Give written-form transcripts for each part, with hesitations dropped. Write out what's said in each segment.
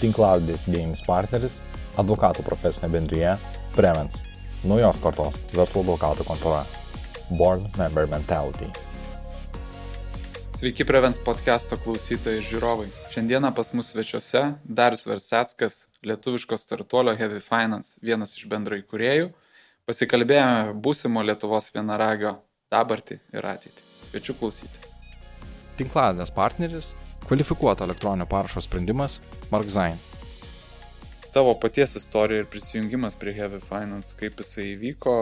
tinklalaidės idėjinis partneris, advokatų profesinė bendrija Prevens, naujos kartos verslo advokatų kontora, Board Member Mentality. Sveiki Prevens podcast'o klausytojai ir žiūrovai. Šiandieną pas mus svečiuose Darius Verseckas, lietuviško startuolio Heavy Finance, vienas iš bendraįkūrėjų. Pasikalbėjome būsimo Lietuvos vienaragio dabartį ir ateitį. Kviečiu klausyti. Tinklalaidės partneris, kvalifikuoto elektroninio parašo sprendimas Markzain. Tavo paties istorija ir prisijungimas prie Heavy Finance, kaip jisai įvyko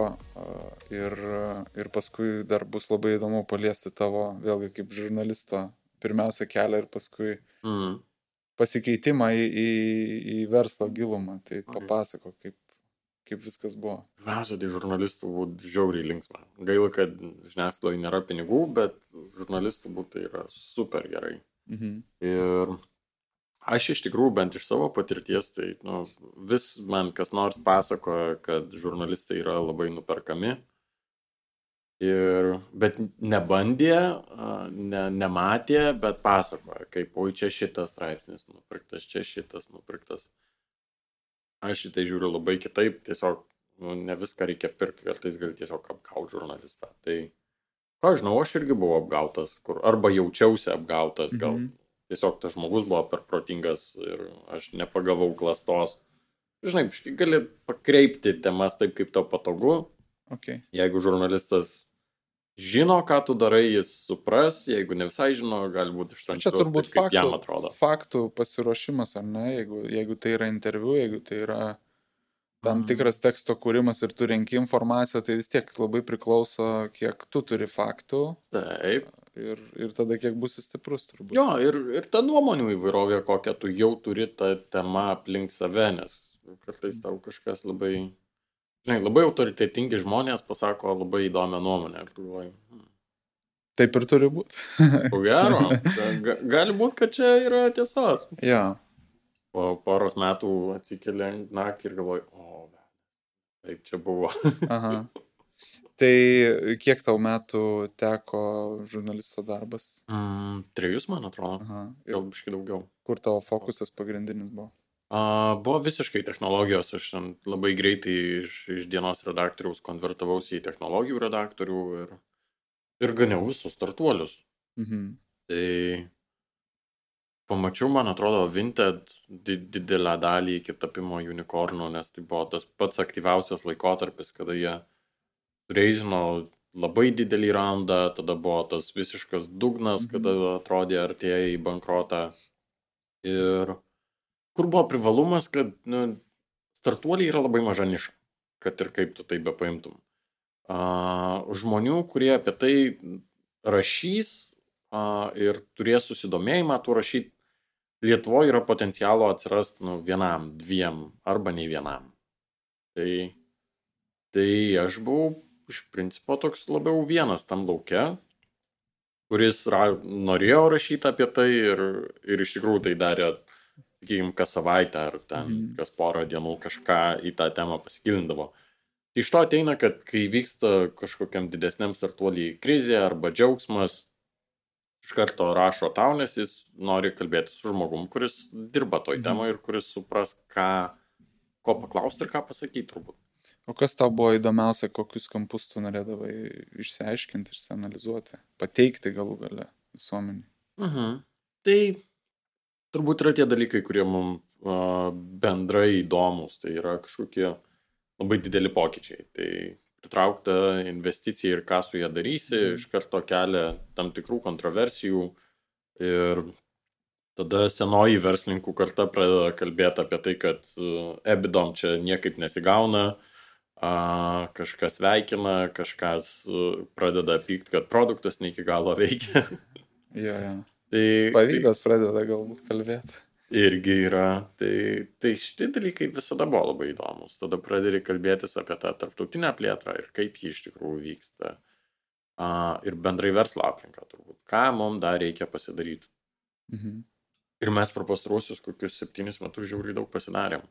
ir paskui dar bus labai įdomu paliesti tavo, vėlgi kaip žurnalisto, pirmiausia kelią ir paskui pasikeitimą į verslo gilumą. Tai papasako, kaip viskas buvo. Pirmiausia, tai žurnalistų būtų žiauriai linksma. Gaila, kad žiniasklaidoje nėra pinigų, bet žurnalistų būtų tai yra super gerai. Ir aš iš tikrųjų, bent iš savo patirties, tai vis man kas nors pasakoja, kad žurnalistai yra labai nuperkami. Bet nebandė, nematė, bet pasakoja, kaip, oi, čia šitas straipsnis nupirktas, čia šitas nupirktas. Aš šitai žiūriu labai kitaip, tiesiog ne viską reikia pirkti, kartais gali tiesiog apgauti žurnalistą. Tai, ką žinau, aš irgi buvau apgautas, arba jaučiausi apgautas, gal tiesiog tas žmogus buvo per protingas ir aš nepagavau klastos. Žinai, gali pakreipti temas taip, kaip tau patogu. Okay. Jeigu žurnalistas žino, ką tu darai, jis supras, jeigu ne visai žino, gali būti ištransliuos taip, kaip jam atrodo. Faktų pasiruošimas, ar ne? Jeigu tai yra interviu, jeigu tai yra tam tikras teksto kūrimas ir tu renki informaciją, tai vis tiek labai priklauso, kiek tu turi faktų. Taip. Ir tada kiek būsi stiprus, turbūt. Jo, ir ta nuomonių įvairovė, kokią tu jau turi tą temą aplink save, nes kartais tau kažkas labai autoritetingi žmonės pasako labai įdomią nuomonę. Ir tu galvoji, Taip ir turi būti. Ko gero, gali būti, kad čia yra tiesos. Ja. Po poros metų atsikeli naktį ir galvoji, taip čia buvo. Aha. Tai kiek tau metų teko žurnalisto darbas? 3, man atrodo. Aha. Gal biškai daugiau. Kur tavo fokusas pagrindinis buvo? Buvo visiškai technologijos. Aš labai greitai iš dienos redaktoriaus konvertavausi į technologijų redaktorių ir ganiau visus startuolius. Tai pamačiau, man atrodo, Vinted didelę dalį iki tapimo unicornų, nes tai buvo tas pats aktyviausias laikotarpis, kada jie reizino labai didelį raundą, tada buvo tas visiškas dugnas, kada atrodė artėja į bankrotą. Ir kur buvo privalumas, kad startuoliai yra labai maža niša, kad ir kaip tu tai bepaimtum. Žmonių, kurie apie tai rašys ir turės susidomėjimą tu rašyti, Lietuvoje yra potencialo atsirasti 1, 2 arba nei vienam. Tai aš buvau iš principo toks labiau vienas tam lauke, kuris norėjo rašyti apie tai ir iš tikrųjų tai darė, sakykime, kas savaitę ar ten kas porą dienų kažką į tą temą pasigilindavo. Iš to ateina, kad kai vyksta kažkokiam didesniam startuoliai krizė arba džiaugsmas, iš karto rašo tau, nes jis nori kalbėti su žmogum, kuris dirba toj temoje ir kuris supras, ko paklausti ir ką pasakyti turbūt. O kas tau buvo įdomiausia, kokius kampus tu norėdavai išsiaiškinti, išsianalizuoti, pateikti galų gale visuomeniai? Tai turbūt yra tie dalykai, kurie mums bendrai įdomus, tai yra kažkokie labai dideli pokyčiai. Tai pritraukta investicija ir ką su ją darysi, iš karto kelia tam tikrų kontroversijų ir tada senoji verslininkų karta pradeda kalbėti apie tai, kad ebidom čia niekaip nesigauna, kažkas veikina, kažkas pradeda pykti, kad produktas ne iki galo veikia. Ja. Tai pavydas pradeda galbūt kalbėti. Irgi yra. Tai šitie dalykai visada buvo labai įdomus. Tada pradedi kalbėtis apie tą tarptautinę plėtrą ir kaip ji iš tikrųjų vyksta. Ir bendrai verslo aplinką turbūt. Ką mums dar reikia pasidaryti. Ir mes per pastaruosius kokius 7 metus žiauriai daug pasidarėm.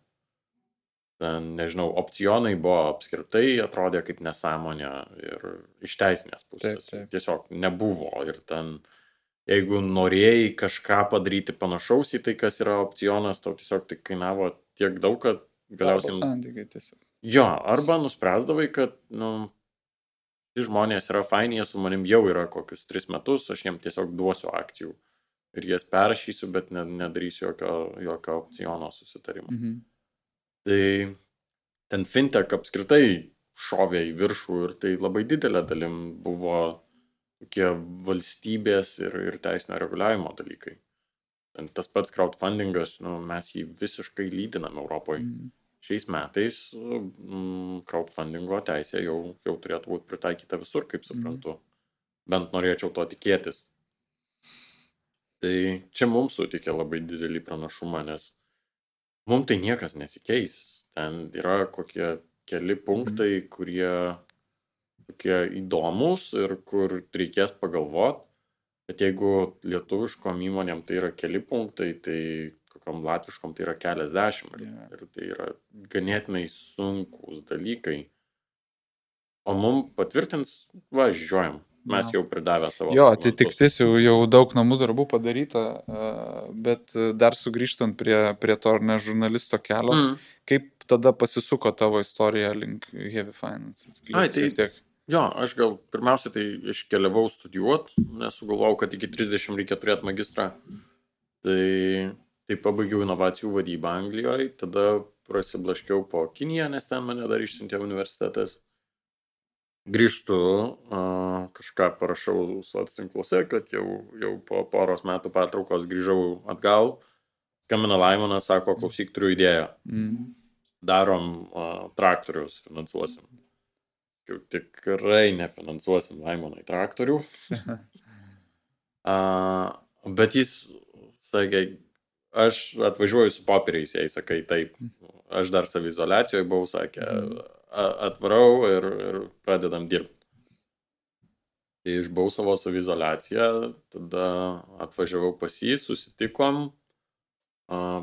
Ten, nežinau, opcionai buvo apskritai, atrodė kaip nesąmonė ir iš teisinės pusės. Taip. Tiesiog nebuvo ir ten jeigu norėjai kažką padaryti panašaus į tai, kas yra opcionas, tau tiesiog tai kainavo tiek daug, kad Darbo galiausiai... santykiai tiesiog. Jo, arba nuspręsdavai, kad, žmonės yra faini, jie su manim jau yra kokius 3 metus, aš jiem tiesiog duosiu akcijų ir jas perrašysiu, bet nedarysiu jokio opciono susitarimo. Tai ten fintech apskritai šovė į viršų ir tai labai didelė dalim buvo tokie valstybės ir teisinio reguliavimo dalykai. Ten tas pats crowdfundingas, mes jį visiškai lydinam Europoje. Šiais metais crowdfundingo teisė jau turėtų būti pritaikyta visur, kaip suprantu. Bent norėčiau to tikėtis. Tai čia mums sutikė labai didelį pranašumą, nes mums tai niekas nesikeis. Ten yra kokie keli punktai, kurie tokie įdomus ir kur reikės pagalvoti. Bet jeigu lietuviškom įmonėm tai yra keli punktai, tai kokiam latviškom tai yra keliasdešimt. Ir tai yra ganėtinai sunkus dalykai. O mums patvirtins, žiūrėjom. Mes jau pridavę savo. Jo, tai tiktis jau daug namų darbų padaryta, bet dar sugrįžtant prie to žurnalisto kelio, kaip tada pasisuko tavo istorija link Heavy Finance? Jo, aš gal pirmiausia tai iškeliavau studijuoti, nes sugalvojau, kad iki 30 reikia turėti magistrą. Tai pabaigiau inovacijų vadybą Anglijoje, tada prasiblaškiau po Kiniją, nes ten mane dar išsiuntė universitetas. Grįžtu, kažką parašau socialtinkluose, kad jau po poros metų pertraukos grįžau atgal. Skambina Laimonas, sako, klausyk, turiu idėją. Darom traktorius, finansuosim. Jau tikrai nefinansuosim Laimonai traktorių. Bet jis sakė, aš atvažiuoju su popieriais, jei sakai taip. Aš dar saviizoliacijoje buvau, sakė, atvarau ir pradedam dirbti. Tai išbuvau savo saviizoliaciją, tada atvažiavau pas jį, susitikom,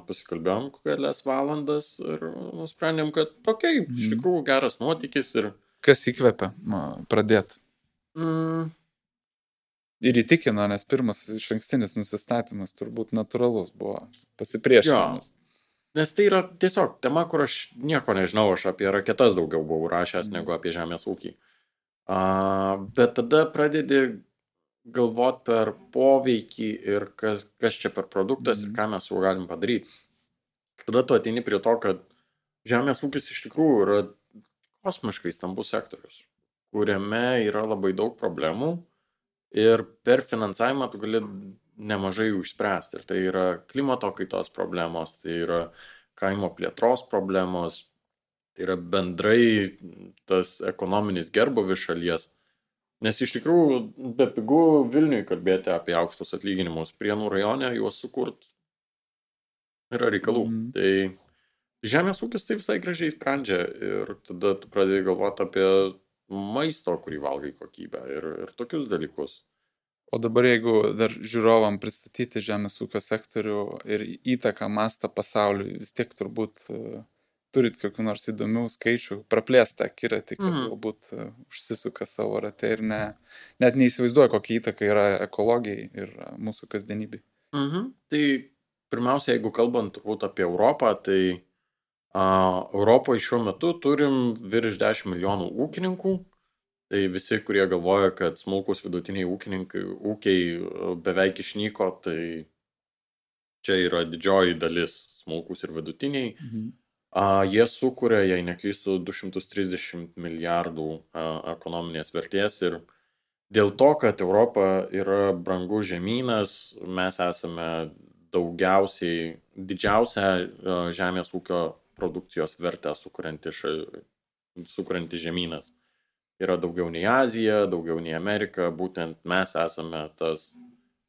pasikalbėjom kelias valandas ir nusprendėm, kad iš tikrųjų geras nuotykis. Kas įkvepia pradėti? Ir įtikino, nes pirmas išankstinis nusistatymas turbūt natūralus buvo, pasipriešinimas. Nes tai yra tiesiog tema, kur aš nieko nežinau, aš apie raketas daugiau buvau rašęs negu apie žemės ūkį. Bet tada pradedi galvoti per poveikį ir kas čia per produktas ir ką mes jau galim padaryti. Tada tu ateini prie to, kad žemės ūkis iš tikrųjų yra kosmiškai stambus sektorius, kuriame yra labai daug problemų ir per finansavimą tu gali nemažai jų išspręsti. Ir tai yra klimato kaitos problemos, tai yra kaimo plėtros problemos, tai yra bendrai tas ekonominis gerbūvis šalies. Nes iš tikrųjų be pigų Vilniui kalbėti apie aukštus atlyginimus, Prienų rajone juos sukurt yra reikalų. Tai žemės ūkis tai visai gražiai sprendžia ir tada tu pradėjai galvoti apie maisto, kurį valgai kokybę ir tokius dalykus. O dabar jeigu dar žiūrovam pristatyti žemės ūkio sektorių ir įtaką mastą pasauliui, vis tiek turbūt turit kokių nors įdomių skaičių, praplėstą akiratį, kas galbūt užsisuka savo rate ir net neįsivaizduoja, kokia įtaka yra ekologijai ir mūsų kasdienybei. Tai pirmiausia, jeigu kalbant turbūt apie Europą, tai Europoje šiuo metu turim virš 10 milijonų ūkininkų. Tai visi, kurie galvoja, kad smulkus vidutiniai ūkiai beveik išnyko, tai čia yra didžioji dalis smulkus ir vidutiniai. Jie sukuria, jei neklystu, 230 milijardų ekonominės vertės ir dėl to, kad Europa yra brangus žemynas, mes esame didžiausia žemės ūkio produkcijos vertę sukurianti žemynas. Yra daugiau nei Azija, daugiau nei Amerika, būtent mes esame tas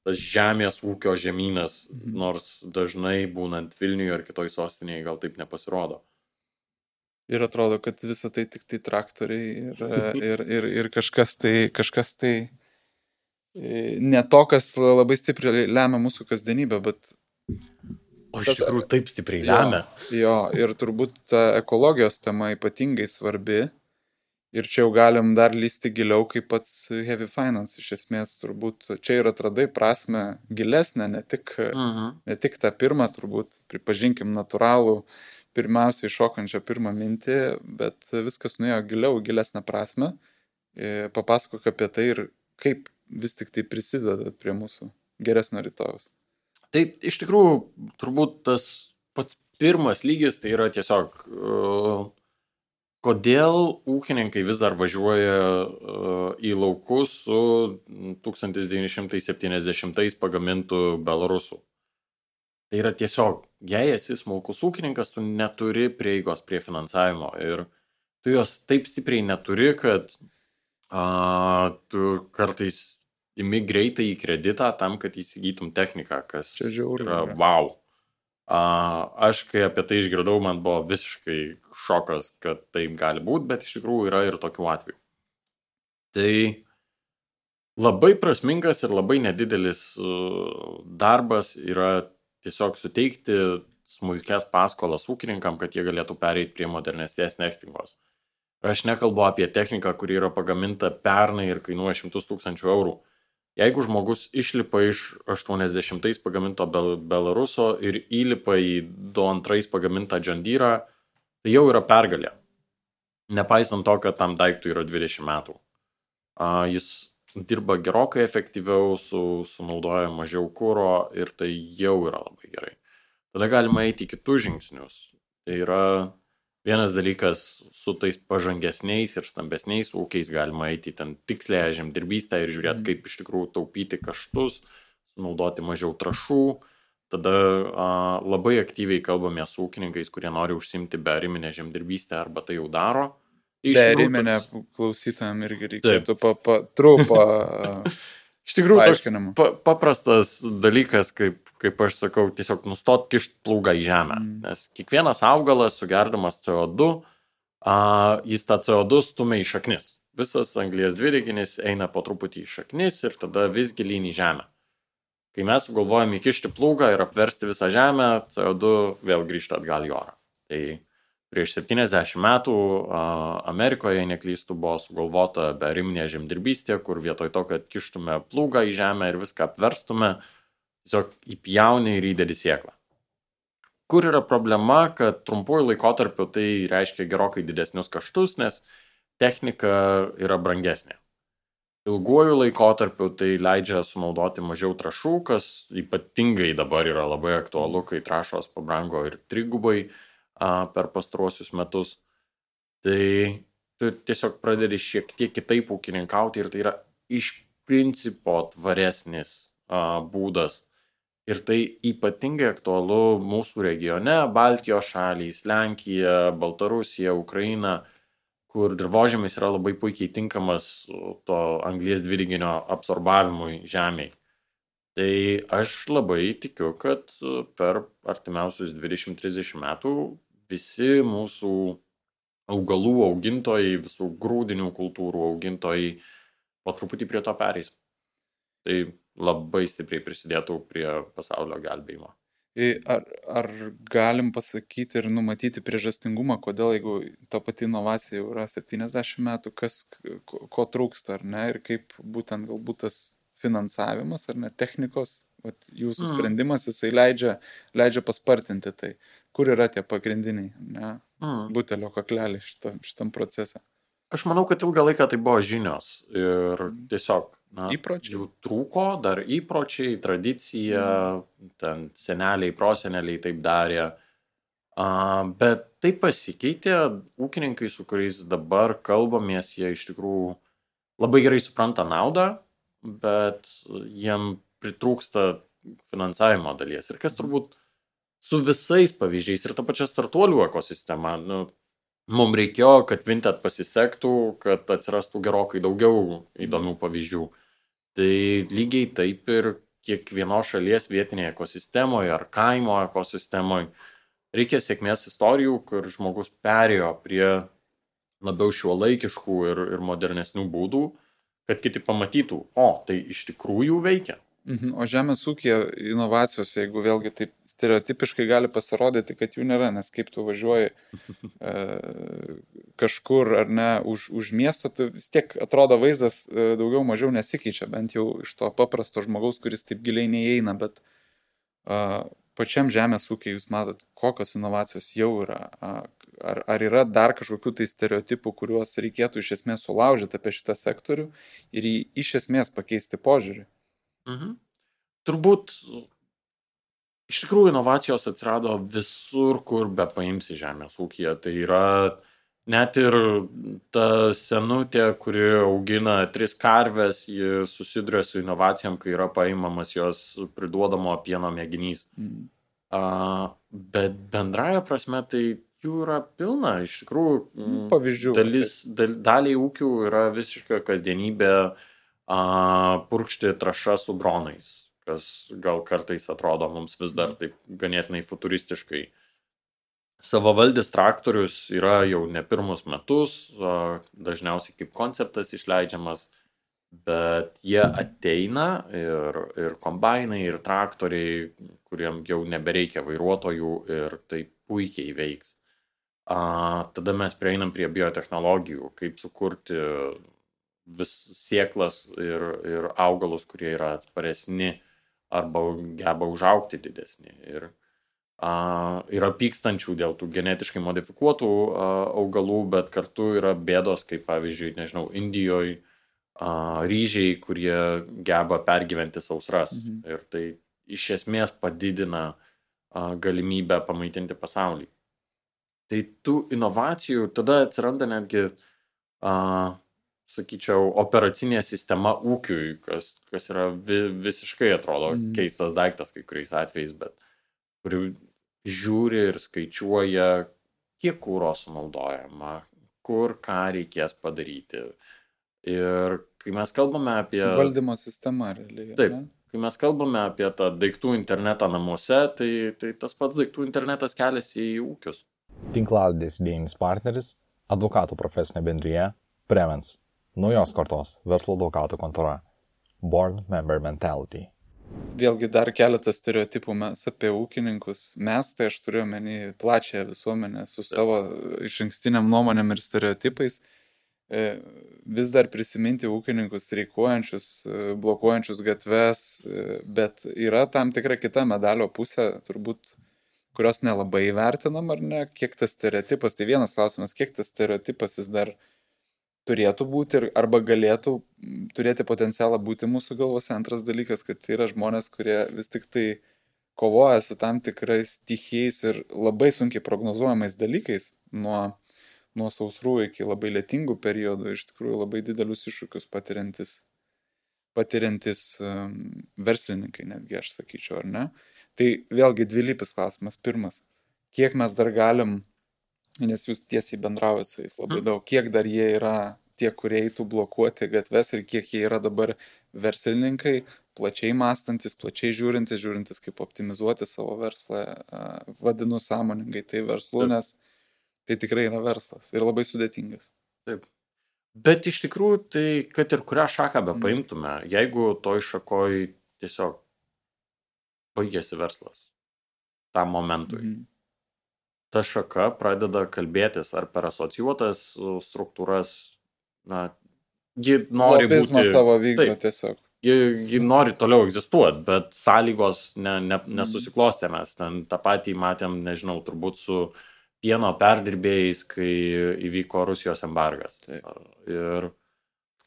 žemės ūkio žemynas, nors dažnai būnant Vilniuje ar kitoj sostinėje gal taip nepasirodo. Ir atrodo, kad visa tai tik tai traktoriai ir kažkas tai ne to, kas labai stipriai lemia mūsų kasdienybę, bet... O iš tikrųjų taip stipriai lemia. Jo, ir turbūt ta ekologijos tema ypatingai svarbi. Ir čia jau galim dar lysti giliau, kaip pats Heavy Finance. Iš esmės, turbūt čia ir atradai prasme gilesnę, ne tik tą pirmą, turbūt, pripažinkim, natūralų, pirmiausiai šokančią pirmą mintį, bet viskas nuėjo giliau, gilesnę prasme. Papasakok apie tai ir kaip vis tik tai prisideda prie mūsų geresnio rytojaus. Tai iš tikrųjų, turbūt tas pats pirmas lygis, tai yra tiesiog, kodėl ūkininkai vis dar važiuoja į laukus su 1970 pagamintų belarusų. Tai yra tiesiog, jei esi smulkus ūkininkas, tu neturi prieigos prie finansavimo ir tu jos taip stipriai neturi, kad tu kartais imi greitai į kreditą tam, kad įsigytum techniką, kas yra wow. Aš, kai apie tai išgirdau, man buvo visiškai šokas, kad taip gali būti, bet iš tikrųjų yra ir tokių atvejų. Tai labai prasmingas ir labai nedidelis darbas yra tiesiog suteikti smulkias paskolas ūkininkam, kad jie galėtų pereiti prie modernesnės technikos. Aš nekalbu apie techniką, kuri yra pagaminta pernai ir kainuoja 100 000 eurų. Jeigu žmogus išlipa iš 80 pagaminto Belaruso ir įlipa į 22 pagamintą John Deere, tai jau yra pergalė. Nepaisant to, kad tam daiktui yra 20 metų. Jis dirba gerokai efektyviau, sunaudoja mažiau kuro ir tai jau yra labai gerai. Tada galima eiti į kitus žingsnius. Tai yra vienas dalykas, su tais pažangesniais ir stambesniais ūkiais galima eiti ten tikslėje žemdirbystę ir žiūrėti, kaip iš tikrųjų taupyti kaštus, sunaudoti mažiau trąšų. Tada labai aktyviai kalbame su ūkininkais, kurie nori užsimti beariminę žemdirbystę arba tai jau daro. Beariminę klausytojam irgi reikėtų trumpą iš tikrųjų, paprastas dalykas, kaip aš sakau, tiesiog nustot kišt plūgą į žemę. Nes kiekvienas augalas, sugerdamas CO2, jis tą CO2 stumia į šaknis. Visas anglies dvideginis eina po truputį į šaknis ir tada vis gilyn į žemę. Kai mes sugalvojame įkišti plūgą ir apversti visą žemę, CO2 vėl grįžta atgal į orą. Tai prieš 70 metų Amerikoje, jei neklystų, buvo sugalvota beariminė žemdirbystė, kur vietoj to, kad kištume plūgą į žemę ir viską apverstume, tiesiog įpjauni ir įdedi sėklą. Kur yra problema, kad trumpuoju laikotarpiu tai reiškia gerokai didesnius kaštus, nes technika yra brangesnė. Ilguoju laikotarpiu tai leidžia sunaudoti mažiau trąšų, kas ypatingai dabar yra labai aktualu, kai trąšos pabrango ir trigubai per pastaruosius metus. Tai tu tiesiog pradedi šiek tiek kitaip ūkininkauti ir tai yra iš principo tvaresnis būdas. Ir tai ypatingai aktualu mūsų regione, Baltijos šalys, Lenkija, Baltarusija, Ukraina, kur dirvožemis yra labai puikiai tinkamas to anglies dvideginio absorbavimui žemėj. Tai aš labai tikiu, kad per artimiausius 20-30 metų visi mūsų augalų augintojai, visų grūdinių kultūrų augintojai po truputį prie to pereis. Tai labai stipriai prisidėtų prie pasaulio gelbėjimo. Ar galim pasakyti ir numatyti priežastingumą, kodėl, jeigu ta pati inovacija jau yra 70 metų, ko trūksta, ar ne, ir kaip būtent galbūt tas finansavimas, ar ne, technikos, jūsų sprendimas, jisai leidžia paspartinti tai. Kur yra tie pagrindiniai, ne, butelio kakleliai šitam procese? Aš manau, kad ilgą laiką tai buvo žinios ir tiesiog jų trūko, dar įpročiai, tradicija, ten seneliai, proseneliai taip darė, bet tai pasikeitė, ūkininkai, su kuriais dabar kalbamės, jie iš tikrųjų labai gerai supranta naudą, bet jiem pritrūksta finansavimo dalies. Ir kas turbūt su visais pavyzdžiais ir ta pačia startuolių ekosistema, mums reikėjo, kad Vinted pasisektų, kad atsirastų gerokai daugiau įdomių pavyzdžių. Tai lygiai taip ir kiekvienos šalies vietinėje ekosistemoje ar kaimo ekosistemoje reikia sėkmės istorijų, kur žmogus perėjo prie labiau šiuolaikiškų ir modernesnių būdų, kad kiti pamatytų, tai iš tikrųjų veikia. O žemės ūkija inovacijos, jeigu vėlgi taip stereotipiškai gali pasirodyti, kad jų nėra, nes kaip tu važiuoji kažkur ar ne už miesto, tai vis tiek atrodo vaizdas daugiau mažiau nesikeičia, bent jau iš to paprasto žmogaus, kuris taip giliai neįeina, bet pačiam žemės ūkiai jūs matot, kokios inovacijos jau yra. Ar yra dar kažkokių tai stereotipų, kuriuos reikėtų iš esmės sulaužyti apie šitą sektorių ir iš esmės pakeisti požiūrį? Turbūt iš tikrųjų inovacijos atsirado visur, kur be paimsi žemės ūkyje. Tai yra net ir ta senutė, kuri augina 3 karves, ji susiduria su inovacijom, kai yra paimamas jos priduodamo pieno mėginys. Bet bendraja prasme tai jų yra pilna. Iš tikrųjų, pavyzdžių. Daliai ūkių yra visiška kasdienybė purkšti trąšas su dronais, kas gal kartais atrodo mums vis dar taip ganėtinai futuristiškai. Savavaldis traktorius yra jau ne pirmus metus, dažniausiai kaip konceptas išleidžiamas, bet jie ateina ir kombainai, ir traktoriai, kuriem jau nebereikia vairuotojų ir tai puikiai veiks. Tada mes prieinam prie biotechnologijų, kaip sukurti vis sėklas ir augalus, kurie yra atsparesni arba geba užaugti didesni. Ir yra pykstančių dėl tų genetiškai modifikuotų augalų, bet kartu yra bėdos, kaip pavyzdžiui, nežinau, Indijoje ryžiai, kurie geba pergyventi sausras. Ir tai iš esmės padidina galimybę pamaitinti pasaulį. Tai tų inovacijų tada atsiranda netgi, sakyčiau, operacinė sistema ūkiui, kas yra visiškai atrodo keistas daiktas kai kuriais atvejais, bet kuri žiūri ir skaičiuoja, kiek kuro sunaudojama, kur ką reikės padaryti. Ir kai mes kalbame apie valdymo sistemą realiai. Taip, kai mes kalbame apie tą daiktų internetą namuose, tai tas pats daiktų internetas keliasi į ūkius. Tinklalaidės idėjinis partneris – advokatų profesinė bendrija Prevens, naujos kartos verslo advokatų kontora, Board Member Mentality. Vėlgi dar keletas stereotipų mes apie ūkininkus. Mes, tai aš turiu omeny plačią visuomenę su savo išankstiniam nuomonėm ir stereotipais. Vis dar prisiminti ūkininkus streikuojančius, blokuojančius gatves, bet yra tam tikra kita medalio pusė, turbūt, kurios nelabai vertinam, ar ne, kiek tas stereotipas, tai vienas klausimas, kiek tas stereotipas jis dar turėtų būti arba galėtų turėti potencialą būti mūsų galvose. Antras dalykas, kad tai yra žmonės, kurie vis tik tai kovoja su tam tikrais stichijais ir labai sunkiai prognozuojamais dalykais, nuo sausrų iki labai lietingų periodų, iš tikrųjų labai didelius iššūkius patiriantis verslininkai, netgi aš sakyčiau, ar ne? Tai vėlgi dvilypis klausimas. Pirmas, kiek mes dar galim, nes jūs tiesiai bendraujat su jais labai daug, kiek dar jie yra tie, kurie eitų blokuoti gatves ir kiek jie yra dabar verslininkai, plačiai mąstantis, plačiai žiūrintis kaip optimizuoti savo verslą, vadinu sąmoningai tai verslu, nes tai tikrai yra verslas ir labai sudėtingas. Taip. Bet iš tikrųjų, tai kad ir kurią šaką be paimtume, jeigu toj šakoj tiesiog baigėsi verslas tam momentui. Ta šaka pradeda kalbėtis ar per asocijuotas struktūras, ji nori lobizmą būti... savo vykdo tiesiog. Ji nori toliau egzistuoti, bet sąlygos nesusiklostė. Mes ten tą patį matėm, nežinau, turbūt su pieno perdirbėjais, kai įvyko Rusijos embargas. Ir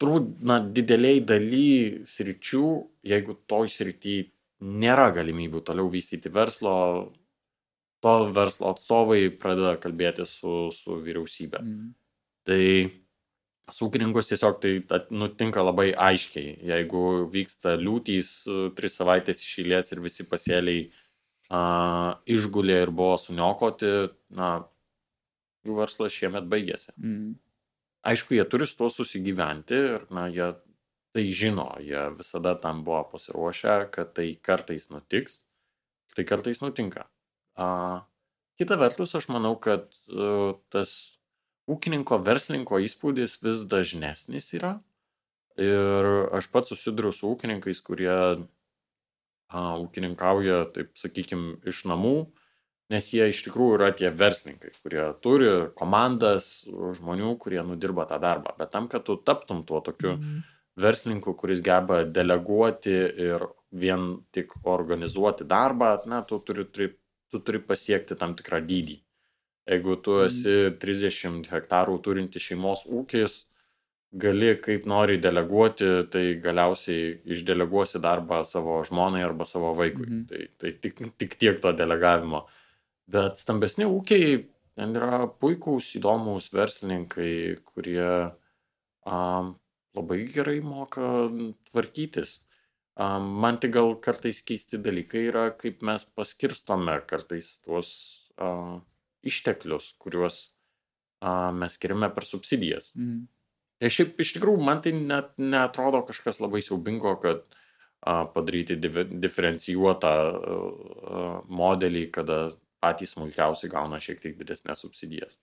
turbūt, dideliai daly sričių, jeigu toj srity nėra galimybių toliau vystyti verslo, to verslo atstovai pradeda kalbėti su vyriausybė. Tai su ūkininkus tiesiog tai nutinka labai aiškiai. Jeigu vyksta liūtys 3 savaitės iš eilės ir visi pasėliai išgulė ir buvo suniokoti, jų verslas šiemet baigėsi. Aišku, jie turi su tuo susigyventi ir jie tai žino, jie visada tam buvo pasiruošę, kad tai kartais nutiks, tai kartais nutinka. Kita vertus, aš manau, kad tas ūkininko, verslininko įspūdis vis dažnesnis yra. Ir aš pats susiduriu su ūkininkais, kurie ūkininkauja, taip sakykim, iš namų, Nes jie iš tikrųjų yra tie verslininkai, kurie turi komandas žmonių, kurie nudirba tą darbą. Bet tam, kad tu taptum tuo tokiu verslininku, kuris geba deleguoti ir vien tik organizuoti darbą, tu turi pasiekti tam tikrą dydį. Jeigu tu esi 30 hektarų turinti šeimos ūkis, gali kaip nori deleguoti, tai galiausiai išdeleguosi darbą savo žmonai arba savo vaikui. Tai tik tiek to delegavimo. Bet stambesni ūkiai, ten yra puikūs, įdomus verslininkai, kurie labai gerai moka tvarkytis. Man tik gal kartais keisti dalykai yra, kaip mes paskirstome kartais tuos išteklius, kuriuos mes skiriame per subsidijas. Ir šiaip iš tikrųjų man tai net neatrodo kažkas labai siaubingo, kad padaryti diferencijuotą modelį, kada patys smulkiausiai gauna šiek tiek didesnės subsidijas.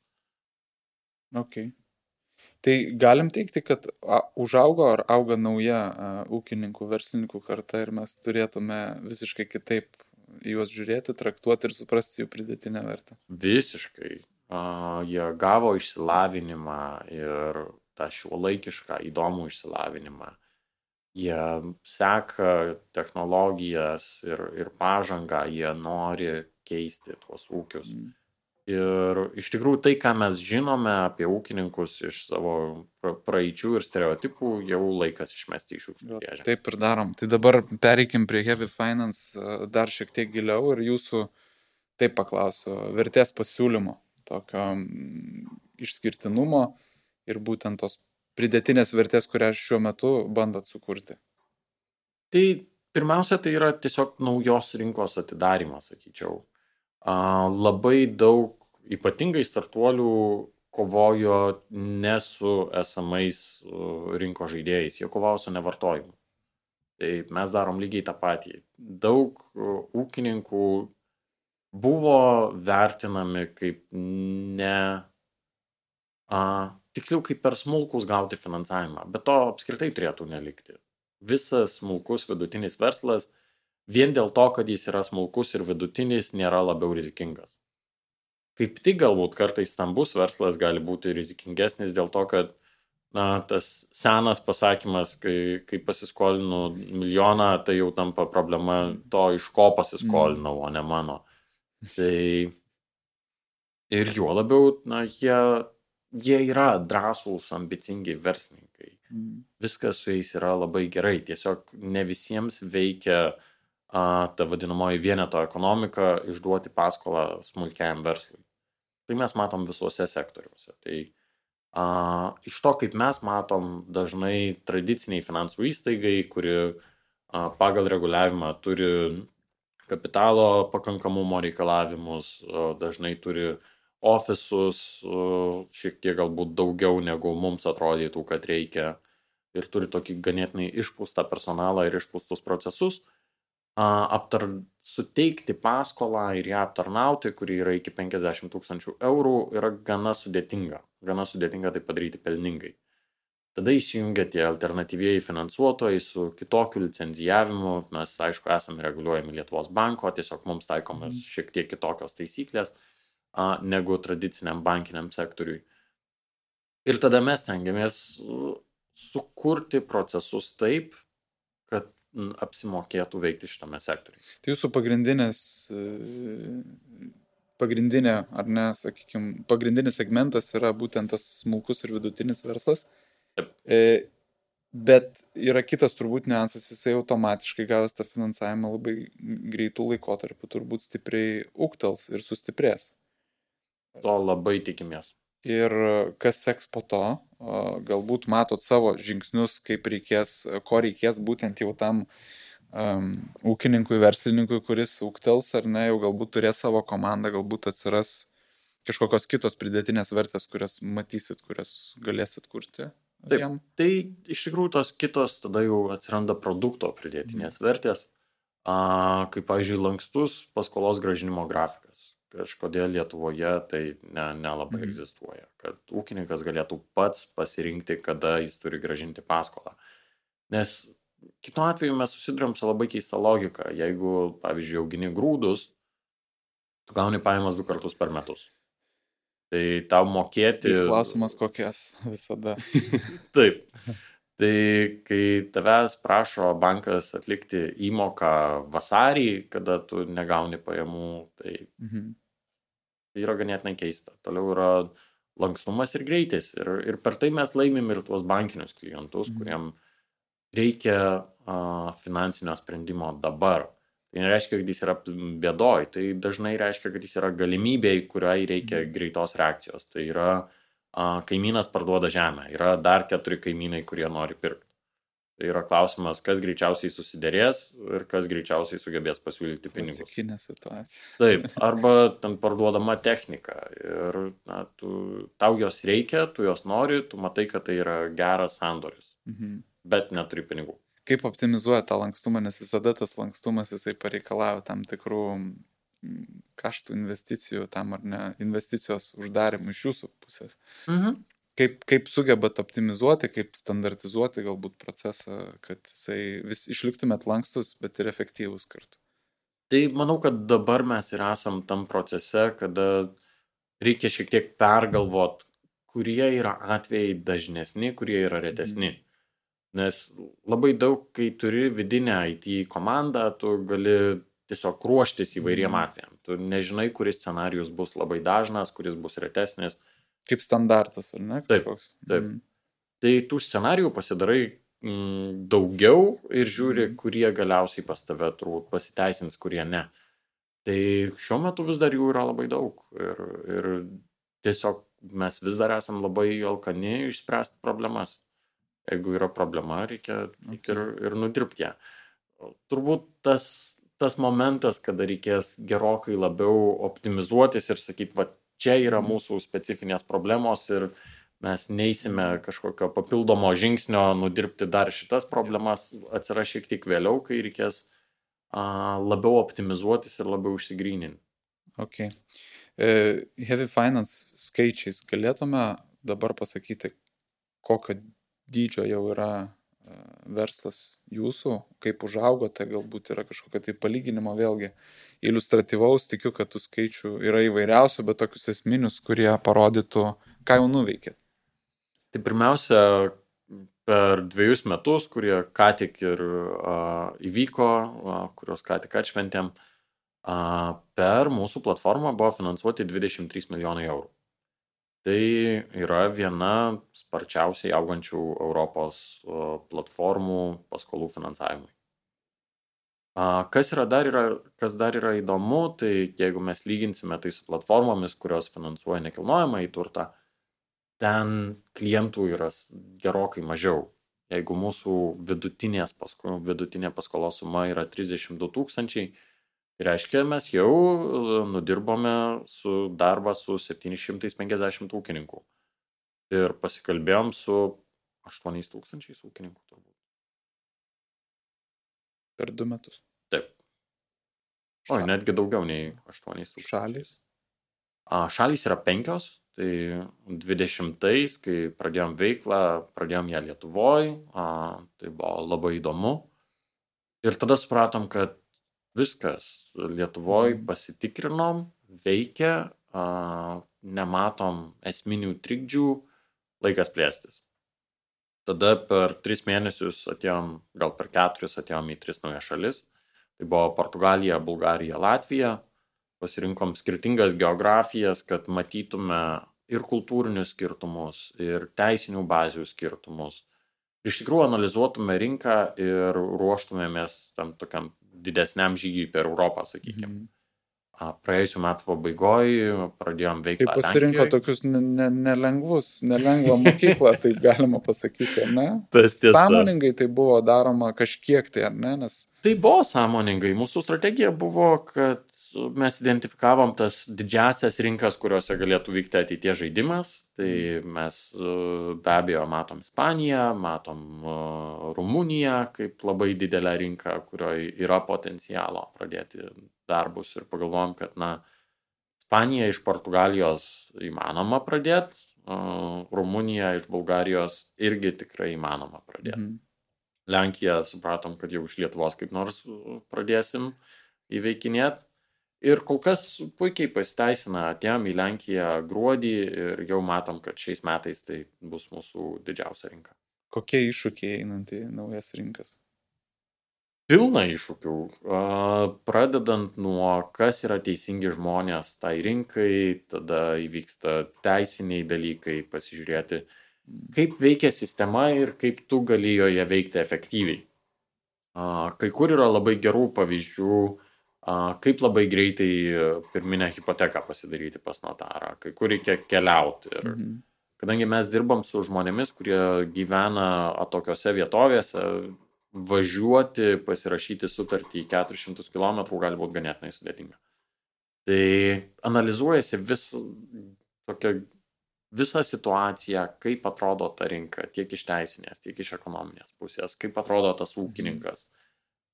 Ok. Tai galim teikti, kad užaugo ar auga nauja ūkininkų, verslininkų karta ir mes turėtume visiškai kitaip juos žiūrėti, traktuoti ir suprasti jų pridėtinę vertę. Visiškai. Jie gavo išsilavinimą ir tą šiuolaikišką įdomų išsilavinimą. Jie seka technologijas ir pažangą, jie nori keisti tuos ūkius. Ir iš tikrųjų tai, ką mes žinome apie ūkininkus iš savo praeičių ir stereotipų, jau laikas išmesti iš šiukšlių dėžę. Taip ir darom. Tai dabar pereikim prie Heavy Finance dar šiek tiek giliau ir jūsų, taip paklausiu, vertės pasiūlymo, tokio išskirtinumo ir būtent tos pridėtinės vertės, kurią šiuo metu bandot sukurti. Tai pirmiausia, tai yra tiesiog naujos rinkos atidarimas, sakyčiau. Labai daug ypatingai startuolių kovojo ne su esamais rinkos žaidėjais, jie kovojo su nevartojimu. Tai mes darom lygiai tą patį. Daug ūkininkų buvo vertinami kaip tiksliau kaip per smulkus gauti finansavimą, bet to apskritai turėtų nelikti. Visas smulkus vidutinis verslas vien dėl to, kad jis yra smulkus ir vidutinis, nėra labiau rizikingas. Kaip tik galbūt kartais stambus verslas gali būti rizikingesnis dėl to, kad tas senas pasakymas, kai pasiskolinu 1 milijoną, tai jau tampa problema to, iš ko pasiskolinau, o ne mano. Tai ir juo labiau, jie yra drąsūs, ambicingi verslininkai. Viskas su jais yra labai gerai. Tiesiog ne visiems veikia ta vadinamoji vieneto ekonomika išduoti paskolą smulkiajam verslui. Tai mes matom visuose sektoriuose. Tai iš to, kaip mes matom, dažnai tradiciniai finansų įstaigai, kuri pagal reguliavimą turi kapitalo pakankamumo reikalavimus, dažnai turi ofisus, šiek tiek galbūt daugiau negu mums atrodytų, kad reikia, ir turi tokį ganėtinai išpūstą personalą ir išpūstus procesus, suteikti paskolą ir ją aptarnauti, kuri yra iki 50 000 eurų, yra gana sudėtinga. Gana sudėtinga tai padaryti pelningai. Tada įsijungia tie alternatyvieji finansuotojai su kitokiu licenzijavimu. Mes, aišku, esame reguliuojami Lietuvos banko, tiesiog mums taikomas šiek tiek kitokios taisyklės negu tradiciniam bankiniam sektoriui. Ir tada mes tengiamės sukurti procesus taip, kad apsimokėtų veikti šitame sektoriuje. Tai jūsų pagrindinis segmentas yra būtent tas smulkus ir vidutinis verslas. Bet yra kitas turbūt niuansas, jisai automatiškai gavęs tą finansavimą labai greitų laikotarpių turbūt stipriai ūgtels ir sustiprės. To labai tikimės. Ir kas seks po to, galbūt matot savo žingsnius, ko reikės būtent jau tam ūkininkui, verslininkui, kuris ūgtels ar ne, jau galbūt turės savo komandą, galbūt atsiras kažkokios kitos pridėtinės vertės, kurias matysit, kurias galėsit kurti. Taip, tai iš tikrųjų tos kitos tada jau atsiranda produkto pridėtinės vertės, kaip, pavyzdžiui, lankstus paskolos grąžinimo grafikas. Kažkodėl Lietuvoje tai nelabai egzistuoja, kad ūkininkas galėtų pats pasirinkti, kada jis turi grąžinti paskolą. Nes kitu atveju mes susiduriam su labai keista logika. Jeigu, pavyzdžiui, augini grūdus, tu gauni pajamas 2 kartus per metus. Tai tau mokėti... Ir klausimas kokias visada. Taip. Tai kai tavęs prašo bankas atlikti įmoką vasarį, kada tu negauni pajamų, tai yra ganėtinai keista. Toliau yra lankstumas ir greitis. Ir per tai mes laimim ir tuos bankinius klientus, kuriem reikia finansinio sprendimo dabar. Tai nereiškia, kad jis yra bėdoj, tai dažnai reiškia, kad jis yra galimybė, kuriai reikia greitos reakcijos. Tai yra kaimynas parduoda žemę, yra dar 4 kaimynai, kurie nori pirkti. Tai yra klausimas, kas greičiausiai susiderės ir kas greičiausiai sugebės pasiūlyti pinigus. Klasikinė situacija. Taip, arba ten parduodama technika ir tau jos reikia, tu jos nori, tu matai, kad tai yra geras sandoris, bet neturi pinigų. Kaip optimizuoja tą lankstumą, nes visada tas lankstumas jisai pareikalavo tam tikrų kaštų investicijų tam ar ne, investicijos uždarimų iš jūsų pusės. Kaip sugebat optimizuoti, kaip standartizuoti galbūt procesą, kad jisai vis išliktumėt lankstus, bet ir efektyvus kartu? Tai manau, kad dabar mes ir esam tam procese, kada reikia šiek tiek pergalvot, kurie yra atvejai dažnesni, kurie yra retesni. Nes labai daug, kai turi vidinę IT komandą, tu gali tiesiog ruoštis įvairiem atvejam. Tu nežinai, kuris scenarijus bus labai dažnas, kuris bus retesnis. Kaip standartas, ar ne? Kažkoks. Taip. Tai tų scenarijų pasidarai daugiau ir žiūri, kurie galiausiai pas tave turbūt pasiteisins, kurie ne. Tai šiuo metu vis dar jų yra labai daug. Ir tiesiog mes vis dar esam labai alkani išspręsti problemas. Jeigu yra problema, reikia ir nudirbti ją. Turbūt tas momentas, kada reikės gerokai labiau optimizuotis ir sakyti, va, čia yra mūsų specifinės problemos ir mes neisime kažkokio papildomo žingsnio nudirbti dar šitas problemas, atsiras šiek tiek vėliau, kai reikės labiau optimizuotis ir labiau išsigryninti. Ok. Heavy Finance skaičiais galėtume dabar pasakyti, kokio dydžio jau yra verslas jūsų, kaip užaugote, galbūt yra kažkokio tai palyginimo vėlgi iliustratyvaus, tikiu, kad tų skaičių yra įvairiausių, bet tokius esminius, kurie parodytų, ką jau nuveikėt. Tai pirmiausia, per 2 metus, kurie ką tik ir įvyko, kurios ką tik atšventėm, per mūsų platformą buvo finansuoti 23 milijonai eurų. Tai yra viena sparčiausiai augančių Europos platformų paskolų finansavimui. Kas dar yra įdomu, tai jeigu mes lyginsime tai su platformomis, kurios finansuoja nekilnojamą į turtą, ten klientų yra gerokai mažiau. Jeigu mūsų vidutinė paskolos suma yra 32 000, tai reiškia, mes jau nudirbome darbą su 750 ūkininkų ir pasikalbėjom su 8 000 ūkininkų turbūt. Per 2 metus? Taip. Netgi daugiau nei 8 000. Šalys? Šalys yra 5, tai 20-ais, kai pradėjom veiklą, pradėjom ją Lietuvoje, tai buvo labai įdomu. Ir tada supratom, kad viskas Lietuvoje pasitikrinom, veikia, nematom esminių trikdžių, laikas plėstis. Tada per 3 mėnesius atėjom, gal per 4 atėjom į 3 naujas šalis. Tai buvo Portugalija, Bulgarija, Latvija. Pasirinkom skirtingas geografijas, kad matytume ir kultūrinius skirtumus, ir teisinių bazių skirtumus. Iš tikrųjų analizuotume rinką ir ruoštumėmės tam tokiam didesniam žygiui per Europą, sakykime. Praėjusių metų pabaigoje pradėjom veiklą Lenkijoje. Tai pasirinko tokius nelengvą mokyklą, taip galima pasakyti, ar ne? Tas tiesa. Sąmoningai tai buvo daroma kažkiek tai, ar ne? Nes... Tai buvo sąmoningai. Mūsų strategija buvo, kad mes identifikavom tas didžiasias rinkas, kuriuose galėtų vykti ateities žaidimas. Tai mes be abejo matom Ispaniją, matom Rumuniją kaip labai didelę rinką, kurioje yra potencialo pradėti darbus ir pagalvojom, kad Ispanija iš Portugalijos įmanoma pradėti, Rumunija iš Bulgarijos irgi tikrai įmanoma pradėti. Lenkiją supratom, kad jau iš Lietuvos kaip nors pradėsim įveikinėti. Ir kol kas puikiai pasiteisina, atėjom į Lenkiją gruodį ir jau matom, kad šiais metais tai bus mūsų didžiausia rinka. Kokie iššūkiai einant į naujas rinkas? Pilna iššūkių, pradedant nuo kas yra teisingi žmonės tai rinkai, tada įvyksta teisiniai dalykai, pasižiūrėti, kaip veikia sistema ir kaip tu gali joje veikti efektyviai. Kai kur yra labai gerų pavyzdžių, kaip labai greitai pirminę hipoteką pasidaryti pas notarą, kai kur reikia keliauti. Ir kadangi mes dirbam su žmonėmis, kurie gyvena atokiose vietovėse, važiuoti, pasirašyti sutartį 400 km gali būti ganėtinai sudėtinga. Tai analizuojasi visą situaciją, kaip atrodo ta rinka, tiek iš teisinės, tiek iš ekonominės pusės, kaip atrodo tas ūkininkas,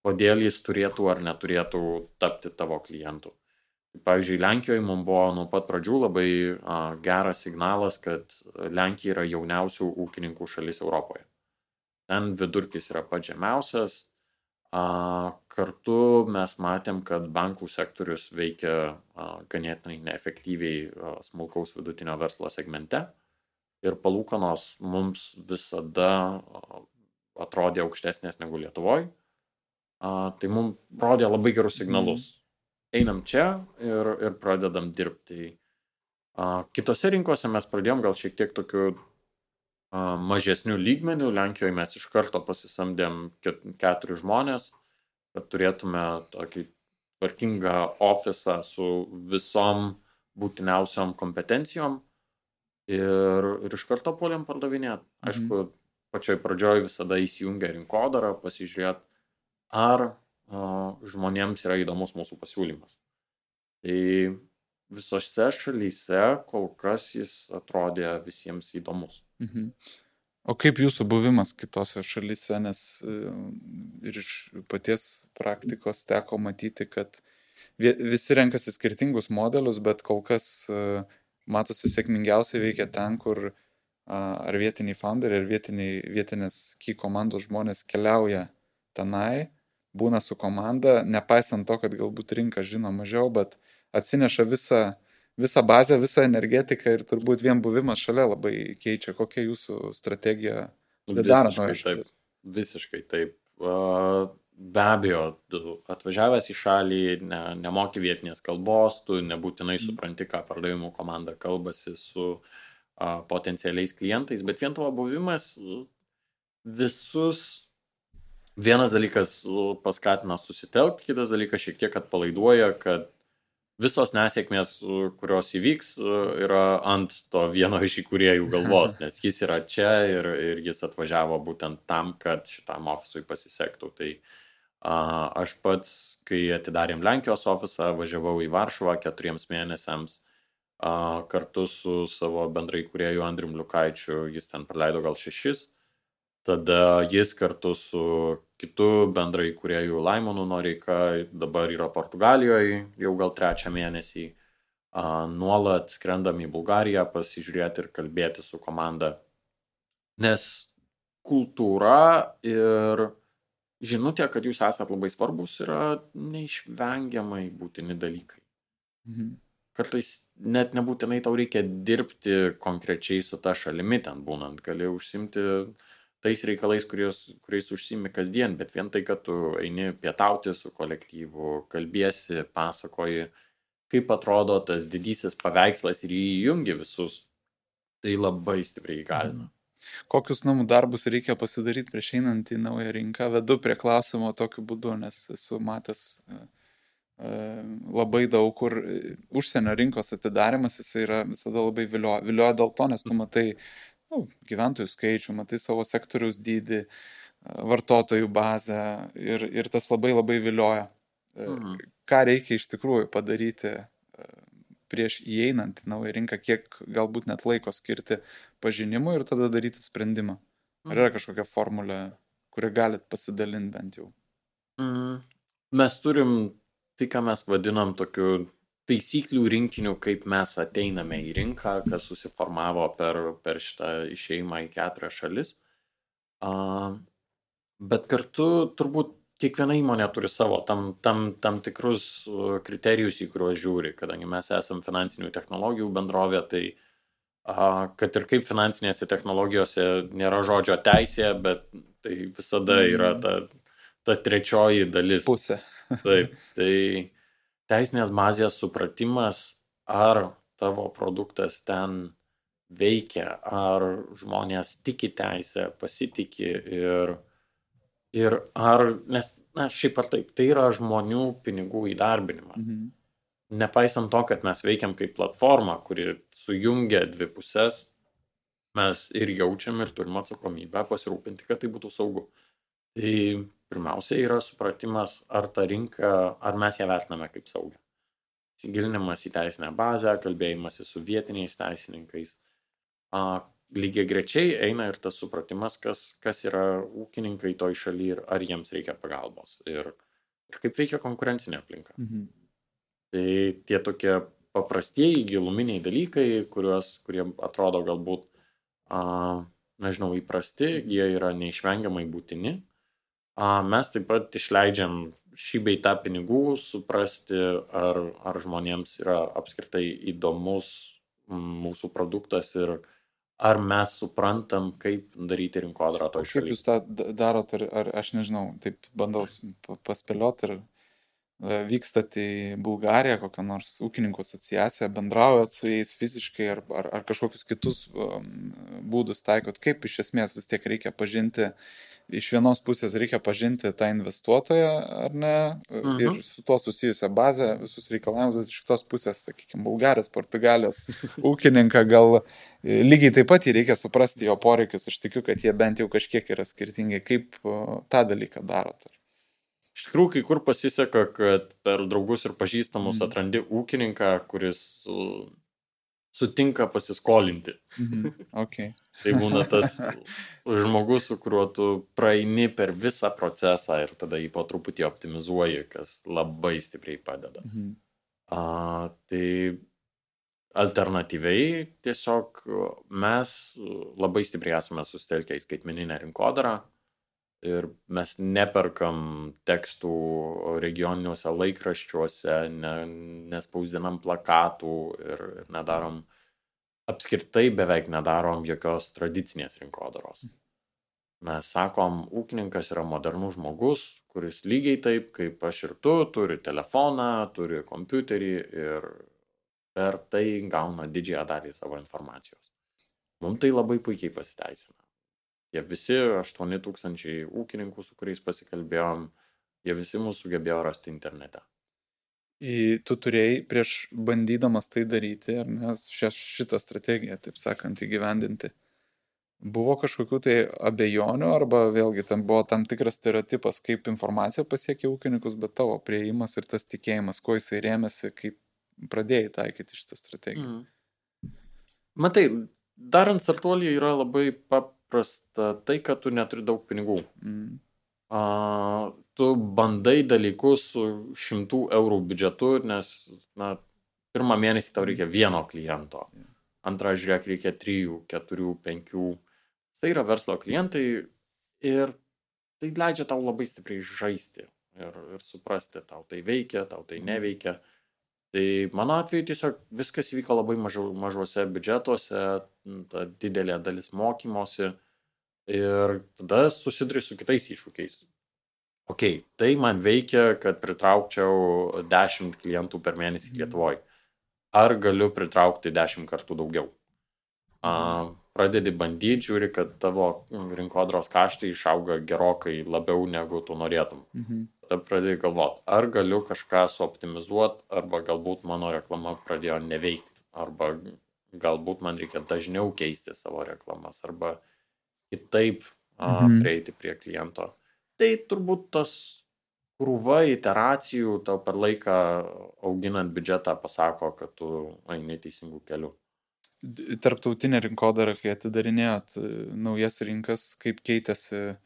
kodėl jis turėtų ar neturėtų tapti tavo klientu. Pavyzdžiui, Lenkijoje mums buvo nuo pat pradžių labai geras signalas, kad Lenkija yra jauniausių ūkininkų šalis Europoje. Ten vidurkis yra pats žemiausias. Kartu mes matėm, kad bankų sektorius veikia ganėtinai neefektyviai smulkaus vidutinio verslo segmente ir palūkanos mums visada atrodė aukštesnės negu Lietuvoje. Tai mums rodė labai gerus signalus. Einam čia ir pradedam dirbti. Kitose rinkose mes pradėjom gal šiek tiek tokiu mažesnių lygmenių. Lenkijoje mes iš karto pasisamdėm 4 žmonės, kad turėtume tokį tvarkingą ofisą su visom būtiniausiom kompetencijom ir iš karto puolėm pardavinėti. Aišku, pačioj pradžioj visada įsijungia rinkodara, pasižiūrėti, ar žmonėms yra įdomus mūsų pasiūlymas. Tai visose šalyse kol kas jis atrodė visiems įdomus. O kaip jūsų buvimas kitose šalyse, nes ir iš paties praktikos teko matyti, kad visi renkasi skirtingus modelius, bet kol kas matosi sėkmingiausiai veikia ten, kur ar vietiniai founderiai, ar vietinės key komandos žmonės keliauja tenai, būna su komanda, nepaisant to, kad galbūt rinka žino mažiau, bet atsineša visą bazę, visą energetiką ir turbūt vien buvimas šalia labai keičia. Kokia jūsų strategija darant naujas šalis? Visiškai taip. Be abejo, tu atvažiavęs į šalį, nemoki vietinės kalbos, tu nebūtinai supranti, ką pardavimų komanda kalbasi su potencialiais klientais, bet vien tavo buvimas visus. Vienas dalykas paskatina susitelkti, kitas dalykas šiek tiek atpalaiduoja, kad visos nesėkmės, kurios įvyks, yra ant to vieno iš įkūrėjų galvos, nes jis yra čia ir jis atvažiavo būtent tam, kad šitam ofisui pasisektų. Tai aš pats, kai atidarėm Lenkijos ofisą, važiavau į Varšuvą 4 mėnesiams kartu su savo bendrai įkūrėju Andrium Liukaičiu, jis ten praleido gal 6. Tada jis kartu su kitu bendrai įkūrėju Laimonu Noreika dabar yra Portugalijoje jau gal 3 mėnesį. Nuolat skrendam į Bulgariją pasižiūrėti ir kalbėti su komanda. Nes kultūra ir žinutė, kad jūs esat labai svarbus, yra neišvengiamai būtini dalykai. Kartais net nebūtinai tau reikia dirbti konkrečiai su ta šalimi ten būnant, gali užsimti tais reikalais, kuriais užsiimi kasdien, bet vien tai, kad tu eini pietauti su kolektyvu, kalbiesi, pasakoji, kaip atrodo tas didysis paveikslas ir įjungi visus, tai labai stipriai įgalina. Kokius namų darbus reikia pasidaryti prieš einant į naują rinką? Vedu prie klausimo tokiu būdu, nes esu matęs labai daug, kur užsienio rinkos atidarimas, jis yra visada labai vilioja dėl to, nes tu matai gyventojų skaičių, matai savo sektoriaus dydį, vartotojų bazę ir tas labai labai vilioja. Ką reikia iš tikrųjų padaryti prieš įeinant į naują rinką, kiek galbūt net laiko skirti pažinimui ir tada daryti sprendimą? Ar yra kažkokia formulė, kurią galit pasidalinti bent jau? Mes turim tai, ką mes vadinam tokiu taisyklių rinkiniu, kaip mes ateiname į rinką, kas susiformavo per šitą išėjimą į 4 šalis. Bet kartu turbūt kiekviena įmonė turi savo tam tikrus kriterijus, į kuriuos žiūri, kadangi mes esam finansinių technologijų bendrovė, tai kad ir kaip finansinėse technologijose nėra žodžio teisė, bet tai visada yra ta trečioji dalis. Pusė. Taip, tai teisinės bazės supratimas, ar tavo produktas ten veikia, ar žmonės tiki teisę, pasitiki ir ar, nes, šiaip ar taip, tai yra žmonių pinigų įdarbinimas. Nepaisant to, kad mes veikiam kaip platforma, kuri sujungia dvi pusės, mes ir jaučiam ir turim atsakomybę pasirūpinti, kad tai būtų saugu. Tai pirmiausia yra supratimas, ar ta rinka, ar mes ją vertiname kaip saugią. Įsigilinimas į teisinę bazę, kalbėjimas su vietiniais teisininkais. Lygiai grečiai eina ir tas supratimas, kas yra ūkininkai toj šaly ir ar jiems reikia pagalbos. Ir kaip veikia konkurencinė aplinka. Tai tie tokie paprastieji giluminiai dalykai, kurie atrodo galbūt, nežinau, įprasti, jie yra neišvengiamai būtini. Mes taip pat išleidžiam šį bei tą pinigų, suprasti, ar žmonėms yra apskritai įdomus mūsų produktas ir ar mes suprantam, kaip daryti rinkodarą toj šaly. Kaip jūs tą darot, ar aš nežinau, taip bandau paspėlioti, ir vykstat į Bulgariją, kokią nors ūkininkų asociaciją, bendraujat su jais fiziškai, ar kažkokius kitus būdus taikot, kaip iš esmės vis tiek reikia pažinti, iš vienos pusės reikia pažinti tą investuotoją, ar ne, ir su to susijusią bazę, visus reikalavimus, bet iš kitos pusės, sakykime, Bulgarijos, Portugalijos ūkininką, gal lygiai taip pat jį reikia suprasti jo poreikius, aš tikiu, kad jie bent jau kažkiek yra skirtingi, kaip tą dalyką darot. Iš tikrųjų, kai kur pasiseka, kad per draugus ir pažįstamus atrandi ūkininką, kuris sutinka pasiskolinti. Okay. Tai būna tas žmogus, su kuriuo tu praeini per visą procesą ir tada jį po truputį optimizuoji, kas labai stipriai padeda. Tai alternatyviai tiesiog mes labai stipriai esame susitelkę į skaitmeninę rinkodarą ir mes neperkam tekstų regioniniuose laikraščiuose, nespausdinam plakatų ir nedarom, apskritai beveik nedarom jokios tradicinės rinkodaros. Mes sakom, ūkininkas yra modernus žmogus, kuris lygiai taip, kaip aš ir tu, turi telefoną, turi kompiuterį ir per tai gauna didžiąją dalį savo informacijos. Mums tai labai puikiai pasiteisina. Jie visi 8,000 ūkininkų, su kuriais pasikalbėjom, jie visi mūsų sugebėjo rasti internete. Tu turėjai prieš bandydamas tai daryti, ar ne, šitą strategiją, taip sakant, įgyvendinti. Buvo kažkokių tai abejonių, arba vėlgi tam buvo tam tikras stereotipas, kaip informacija pasiekia ūkininkus, bet tavo priėjimas ir tas tikėjimas, kuo jisai rėmėsi, kaip pradėjai taikyti šitą strategiją. Matai, darant startuolį yra labai paprasta tai, kad tu neturi daug pinigų. Tu bandai dalykus su 100 eurų biudžetu, nes pirmą mėnesį tau reikia vieno kliento, antrą žiūrėk reikia 3, 4, 5. Tai yra verslo klientai ir tai leidžia tau labai stipriai žaisti ir suprasti, tau tai veikia, tau tai neveikia. Tai mano atveju tiesiog viskas įvyko labai mažuose biudžetuose, ta didelė dalis mokymosi ir tada susiduri su kitais iššūkiais. Tai man veikia, kad pritraukčiau 10 klientų per mėnesį Lietuvoje. Ar galiu pritraukti 10 kartų daugiau? Pradedi bandyti, žiūri, kad tavo rinkodaros kaštai išauga gerokai labiau negu tu norėtum. Tada pradedi galvoti, ar galiu kažką suoptimizuoti, arba galbūt mano reklama pradėjo neveikti, arba galbūt man reikia dažniau keisti savo reklamas, arba kitaip prieiti prie kliento. Tai turbūt tas krūva iteracijų tau per laiką auginant biudžetą pasako, kad tu eini teisingų kelių. Tarptautinė rinkodara, kai atidarinėjot naujas rinkas, kaip keitėsi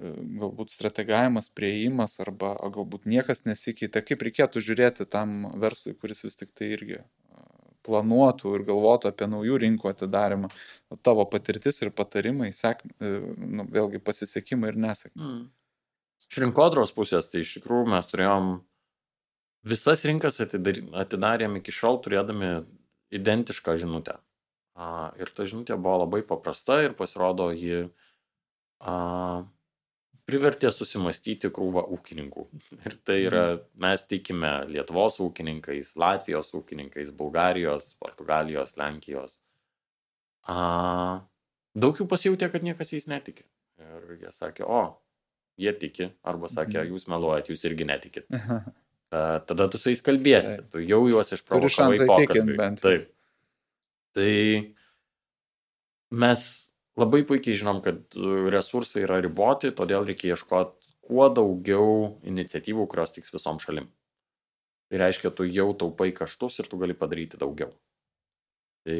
galbūt strategavimas, priėjimas, arba galbūt niekas nesikeitė, kaip reikėtų žiūrėti tam verslui, kuris vis tik tai irgi planuotų ir galvotų apie naujų rinkų atidarimą, tavo patirtis ir patarimai, vėlgi pasisekimai ir nesėkmės. Iš rinkodaros pusės, tai iš tikrųjų mes turėjom visas rinkas atidarėm iki šiol turėdami identišką žinutę. Ir ta žinutė buvo labai paprasta ir pasirodo, ji privertė susimastyti krūvą ūkininkų. Ir tai yra, mes tikime Lietuvos ūkininkais, Latvijos ūkininkais, Bulgarijos, Portugalijos, Lenkijos. Daug jų pasijautė, kad niekas jais netiki. Ir jie sakė, jie tiki, arba sakė, jūs meluojat, jūs irgi netikit. Tada tu su jais kalbėsi, tu jau juos išprovokavai pokalbį. Taip. Tai mes labai puikiai žinom, kad resursai yra riboti, todėl reikia ieškoti kuo daugiau iniciatyvų, kurios tiks visom šalim. Tai reiškia, tu jau taupai kaštus ir tu gali padaryti daugiau. Tai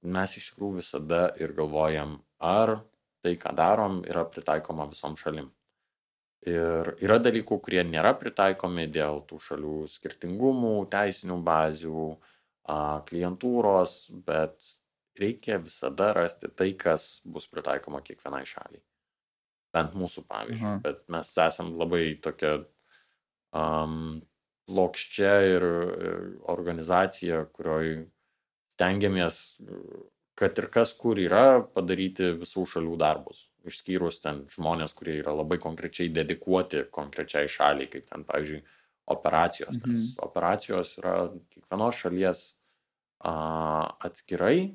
mes iš tikrųjų visada ir galvojam, ar tai, ką darom, yra pritaikoma visom šalim. Ir yra dalykų, kurie nėra pritaikomi dėl tų šalių skirtingumų, teisinių bazių, klientūros, bet reikia visada rasti tai, kas bus pritaikoma kiekvienai šaliai. Bent mūsų pavyzdžiui, bet mes esam labai tokia plokščia ir organizacija, kurioj stengiamės, kad ir kas kur yra, padaryti visų šalių darbus. Išskyrus ten žmonės, kurie yra labai konkrečiai dedikuoti konkrečiai šaliai, kaip ten, pavyzdžiui, operacijos. Nes operacijos yra kiekvienos šalies atskirai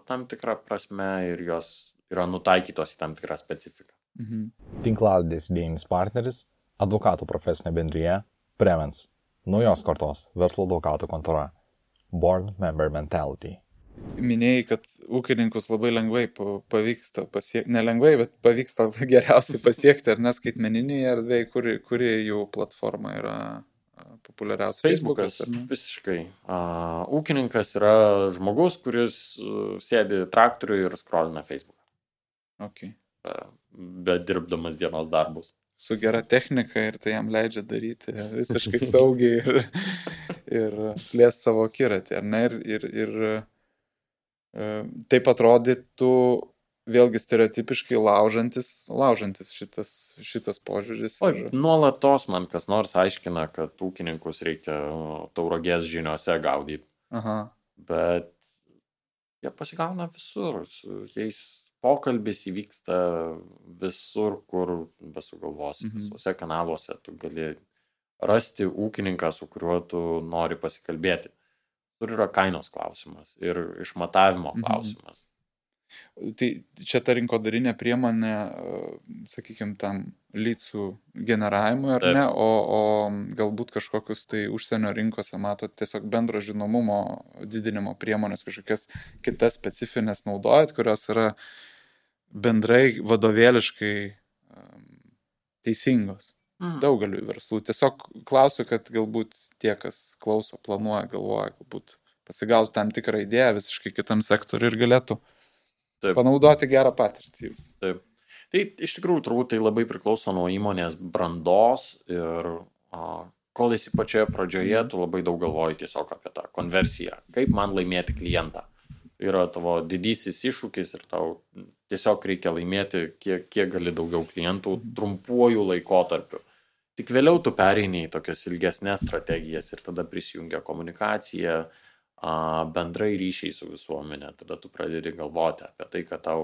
tam tikrą prasme ir jos yra nutaikytos į tam tikrą specifiką. Tinklalaidės idėjinis partneris – advokatų profesinė bendrija Prevens, naujos kartos verslo advokatų kontora, Born Member Mentality. Minėjai, kad ūkininkus labai lengvai pavyksta pasiekti, nelengvai, bet pavyksta geriausiai pasiekti, ar neskaitmeninėje erdvėje, kuri jų platforma yra populiariausia. Facebookas, visiškai. Ūkininkas yra žmogus, kuris sėdi traktoriui ir scrollina Facebooką. Okay. Bet dirbdamas dienos darbus. Su gera technika ir tai jam leidžia daryti visiškai saugiai ir plės savo akiratį, ar ne? Ir taip atrodytų vėlgi stereotipiškai laužantis šitas požiūris. Nuolatos man kas nors aiškina, kad ūkininkus reikia Tauragės žiniose gaudyti. Bet jie pasigauna visur, su jais pokalbis įvyksta visur, kur besugalvosi, visuose kanaluose tu gali rasti ūkininką, su kuriuo tu nori pasikalbėti. Tur yra kainos klausimas ir išmatavimo klausimas. Tai čia ta rinkodarinė priemonė, sakykime, tam leadsų generavimui, ar ne, o galbūt kažkokius tai užsienio rinkose matot tiesiog bendro žinomumo didinimo priemonės, kažkokias kitas specifines naudojat, kurios yra bendrai vadovėliškai teisingos. Daugeliu verslų. Tiesiog klausiu, kad galbūt tie, kas klauso, planuoja, galvoja, galbūt pasigautų tam tikrą idėją visiškai kitam sektoriui ir galėtų panaudoti gerą patirtį jūs. Taip. Tai iš tikrųjų turbūt tai labai priklauso nuo įmonės brandos ir kol esi pačioje pradžioje, tu labai daug galvoji tiesiog apie tą konversiją. Kaip man laimėti klientą? Yra tavo didysis iššūkis ir tau tiesiog reikia laimėti kiek gali daugiau klientų trumpuoju laikotarpiu. Tik vėliau tu pereini į tokias ilgesnės strategijas ir tada prisijungia komunikacija, bendrai ryšiai su visuomenė. Tada tu pradedi galvoti apie tai, kad tau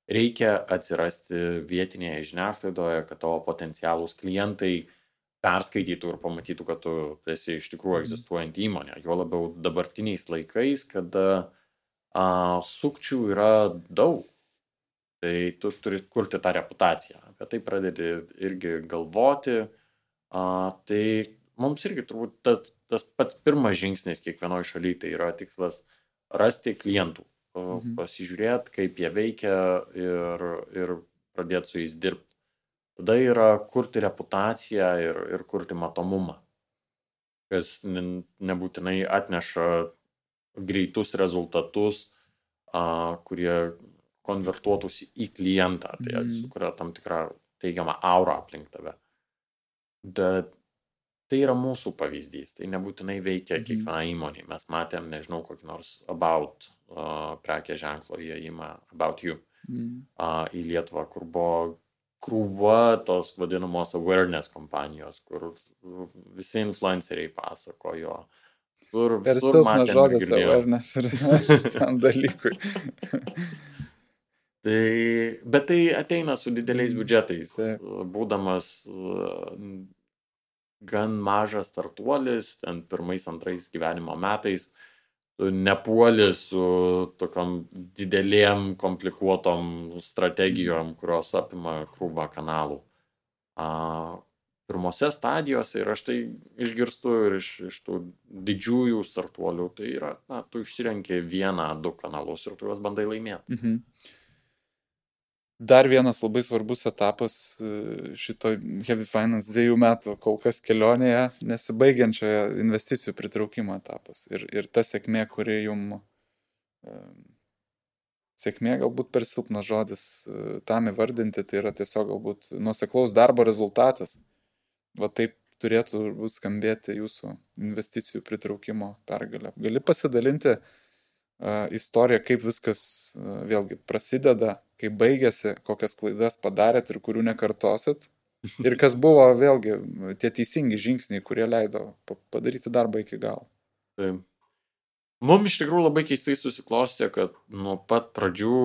reikia atsirasti vietinėje žiniasklaidoje, kad tavo potencialūs klientai perskaitytų ir pamatytų, kad tu esi iš tikrųjų egzistuojanti įmonė. Jo labiau dabartiniais laikais, kada sukčių yra daug. Tai tu turi kurti tą reputaciją. Apie tai pradedi irgi galvoti. Tai mums irgi turbūt tas pats pirmas žingsnis kiekvienoj šalyje, tai yra tikslas rasti klientų, pasižiūrėti, kaip jie veikia ir pradėti su jais dirbti. Tada yra kurti reputaciją ir kurti matomumą, kas nebūtinai atneša greitus rezultatus, kurie konvertuotųsi į klientą, tai sukuria tam tikrą teigiamą aurą aplink tave. Bet tai yra mūsų pavyzdys, tai nebūtinai veikia kiekviena įmonė. Mes matėm, nežinau, kokį nors About prekės ženklo įėjimą, About You, į Lietuvą, kur buvo krūva tos vadinamos awareness kompanijos, kur visi influenceriai pasakojo. Per Visur silpnas matėm ir žodis girdėjom. awareness ir šitam dalykui. Bet tai ateina su dideliais biudžetais. Taip. Būdamas gan mažas startuolis, ten pirmais, antrais gyvenimo metais, tu nepuoli su tokiom didelėm, komplikuotom strategijom, kurios apima krūvą kanalų. Pirmose stadijose, ir aš tai išgirstu ir iš tų didžiųjų startuolių, tai yra, tu išsirenki 1-2 kanalus ir tu juos bandai laimėti. Dar vienas labai svarbus etapas šito Heavy Finance 2 metų kol kas kelionėje, nesibaigiančioje investicijų pritraukimo etapas. Ir ta sėkmė, kuri jums, sėkmė galbūt per silpnas žodis tam įvardinti, tai yra tiesiog galbūt nuoseklaus darbo rezultatas. Va taip turėtų skambėti jūsų investicijų pritraukimo pergalė. Gali pasidalinti istoriją, kaip viskas vėlgi prasideda, kaip baigėsi, kokias klaidas padarėt ir kurių nekartosit. Ir kas buvo vėlgi tie teisingi žingsniai, kurie leido padaryti darbą iki galo. Taip. Mums iš tikrųjų labai keistai susiklostė, kad nuo pat pradžių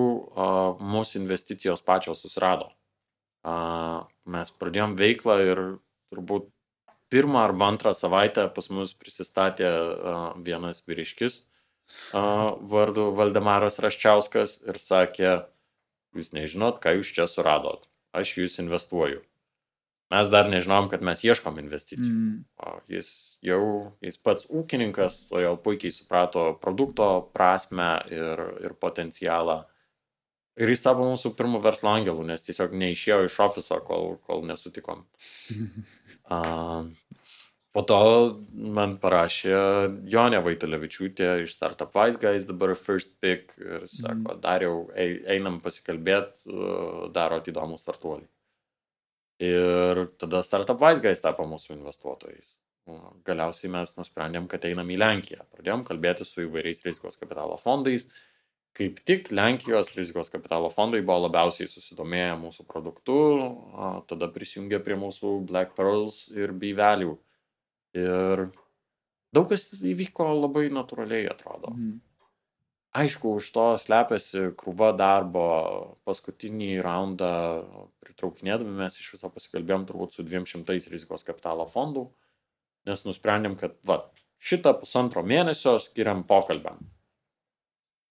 mūsų investicijos pačios susirado. Mes pradėjom veiklą ir turbūt 1 arba 2 savaitę pas mus prisistatė vienas vyriškis vardu Valdemaras Raščiauskas ir sakė, jūs nežinot, ką jūs čia suradot, aš jūs investuoju. Mes dar nežinom, kad mes ieškom investicijų. Jis pats ūkininkas, jau puikiai suprato produkto prasmę ir potencialą. Ir jis tapo mūsų pirmų verslo angelų, nes tiesiog neišėjo iš ofiso, kol nesutikom. Po to man parašė Jonė Vaitulevičiūtė iš Startup Wise Guys, dabar First Pick, ir sako, Dariau, einam pasikalbėti, darot įdomų startuolį. Ir tada Startup Wise Guys tapo mūsų investuotojais. Galiausiai mes nusprendėm, kad einam į Lenkiją. Pradėjom kalbėti su įvairiais rizikos kapitalo fondais. Kaip tik Lenkijos rizikos kapitalo fondai buvo labiausiai susidomėję mūsų produktu, tada prisijungė prie mūsų Black Pearls ir B-Value. Ir daug kas įvyko labai natūraliai, atrodo. Aišku, už to slepiasi krūva darbo. Paskutinį raundą pritraukinėdami mes iš viso pasikalbėjom turbūt su 200 rizikos kapitalo fondų, nes nusprendėm, kad šitą 1,5 mėnesio skiriam pokalbiam.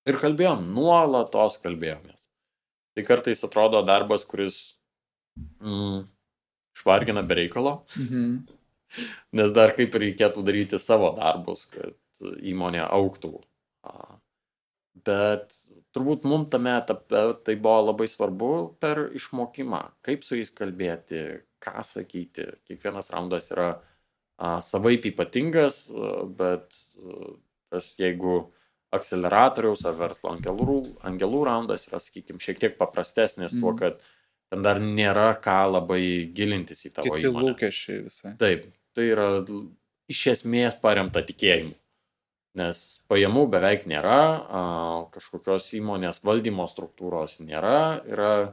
Ir kalbėjom, nuolatos kalbėjomės. Tai kartais atrodo darbas, kuris švargina be reikalo, nes dar kaip reikėtų daryti savo darbus, kad įmonė augtų. Bet turbūt mums tame etape tai buvo labai svarbu per išmokimą, kaip su jais kalbėti, ką sakyti. Kiekvienas raundas yra savaip ypatingas, bet jeigu akceleratoriaus ar verslo angelų raundas yra, sakykime, šiek tiek paprastesnis tuo, kad ten dar nėra ką labai gilintis į tavo įmonę. Kiti lūkesčiai visai. Taip, tai yra iš esmės paremta tikėjimu, nes pajamų beveik nėra, kažkokios įmonės valdymo struktūros nėra, yra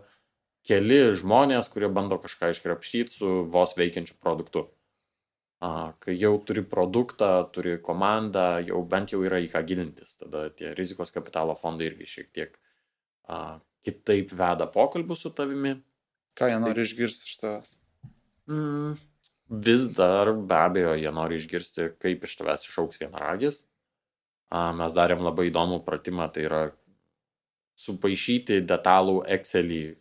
keli žmonės, kurie bando kažką iškrapštyti su vos veikiančiu produktu. Kai jau turi produktą, turi komandą, jau bent jau yra į ką gilintis. Tada tie rizikos kapitalo fondai irgi šiek tiek kitaip veda pokalbius su tavimi. Ką jie nori išgirsti iš tavęs? Vis dar be abejo jie nori išgirsti, kaip iš tavęs išaugs vienaragis. Mes darėm labai įdomų pratimą, tai yra supaišyti detalų Excelį,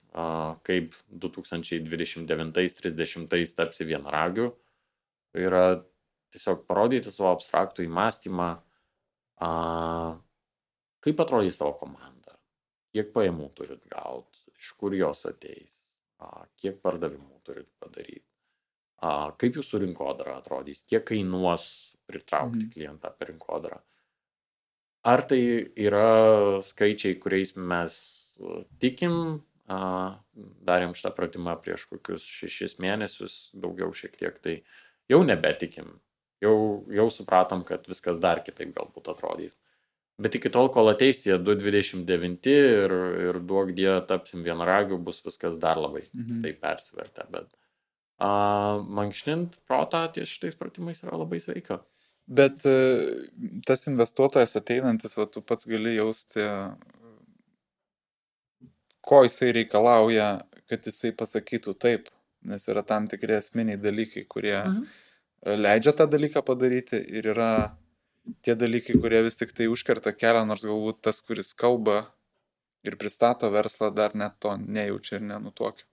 kaip 2029-30 tapsi vienaragiu. Tai yra tiesiog parodyti savo abstraktų įmąstymą, kaip atrodys tavo komanda, kiek pajamų turit gauti, iš kur jos ateis, kiek pardavimų turit padaryti, kaip jūsų rinkodara atrodys, kiek kainuos pritraukti klientą per rinkodarą. Ar tai yra skaičiai, kuriais mes tikim, darėm šitą pratimą prieš kokius 6 mėnesius, daugiau šiek tiek, tai jau nebetikim, jau supratom, kad viskas dar kitaip galbūt atrodys. Bet iki tol, kol ateis tie 2,29 ir duok die tapsim vienaragiu, bus viskas dar labai tai persivertę. Bet mankštint protą ties šitais pratimais yra labai sveika. Bet tas investuotojas ateinantis, tu pats gali jausti, ko jisai reikalauja, kad jisai pasakytų taip, nes yra tam tikri esminiai dalykai, kurie leidžia tą dalyką padaryti ir yra tie dalykai, kurie vis tik tai užkerta kelią, nors galbūt tas, kuris kalba ir pristato verslą, dar net to nejaučia ir nenutuokia.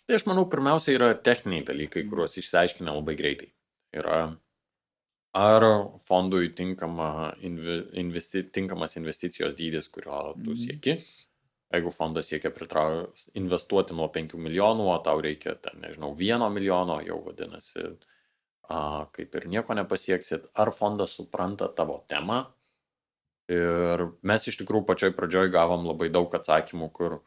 Tai aš manau, pirmiausia yra techniniai dalykai, kuriuos išsiaiškina labai greitai. Yra ar fondui tinkamas investicijos dydis, kurio tu sieki. Jeigu fondas siekia investuoti nuo 5 milijonų, o tau reikia, 1 milijono, jau vadinasi, kaip ir nieko nepasieksit. Ar fondas supranta tavo temą? Ir mes iš tikrųjų pačioj pradžioj gavom labai daug atsakymų, kur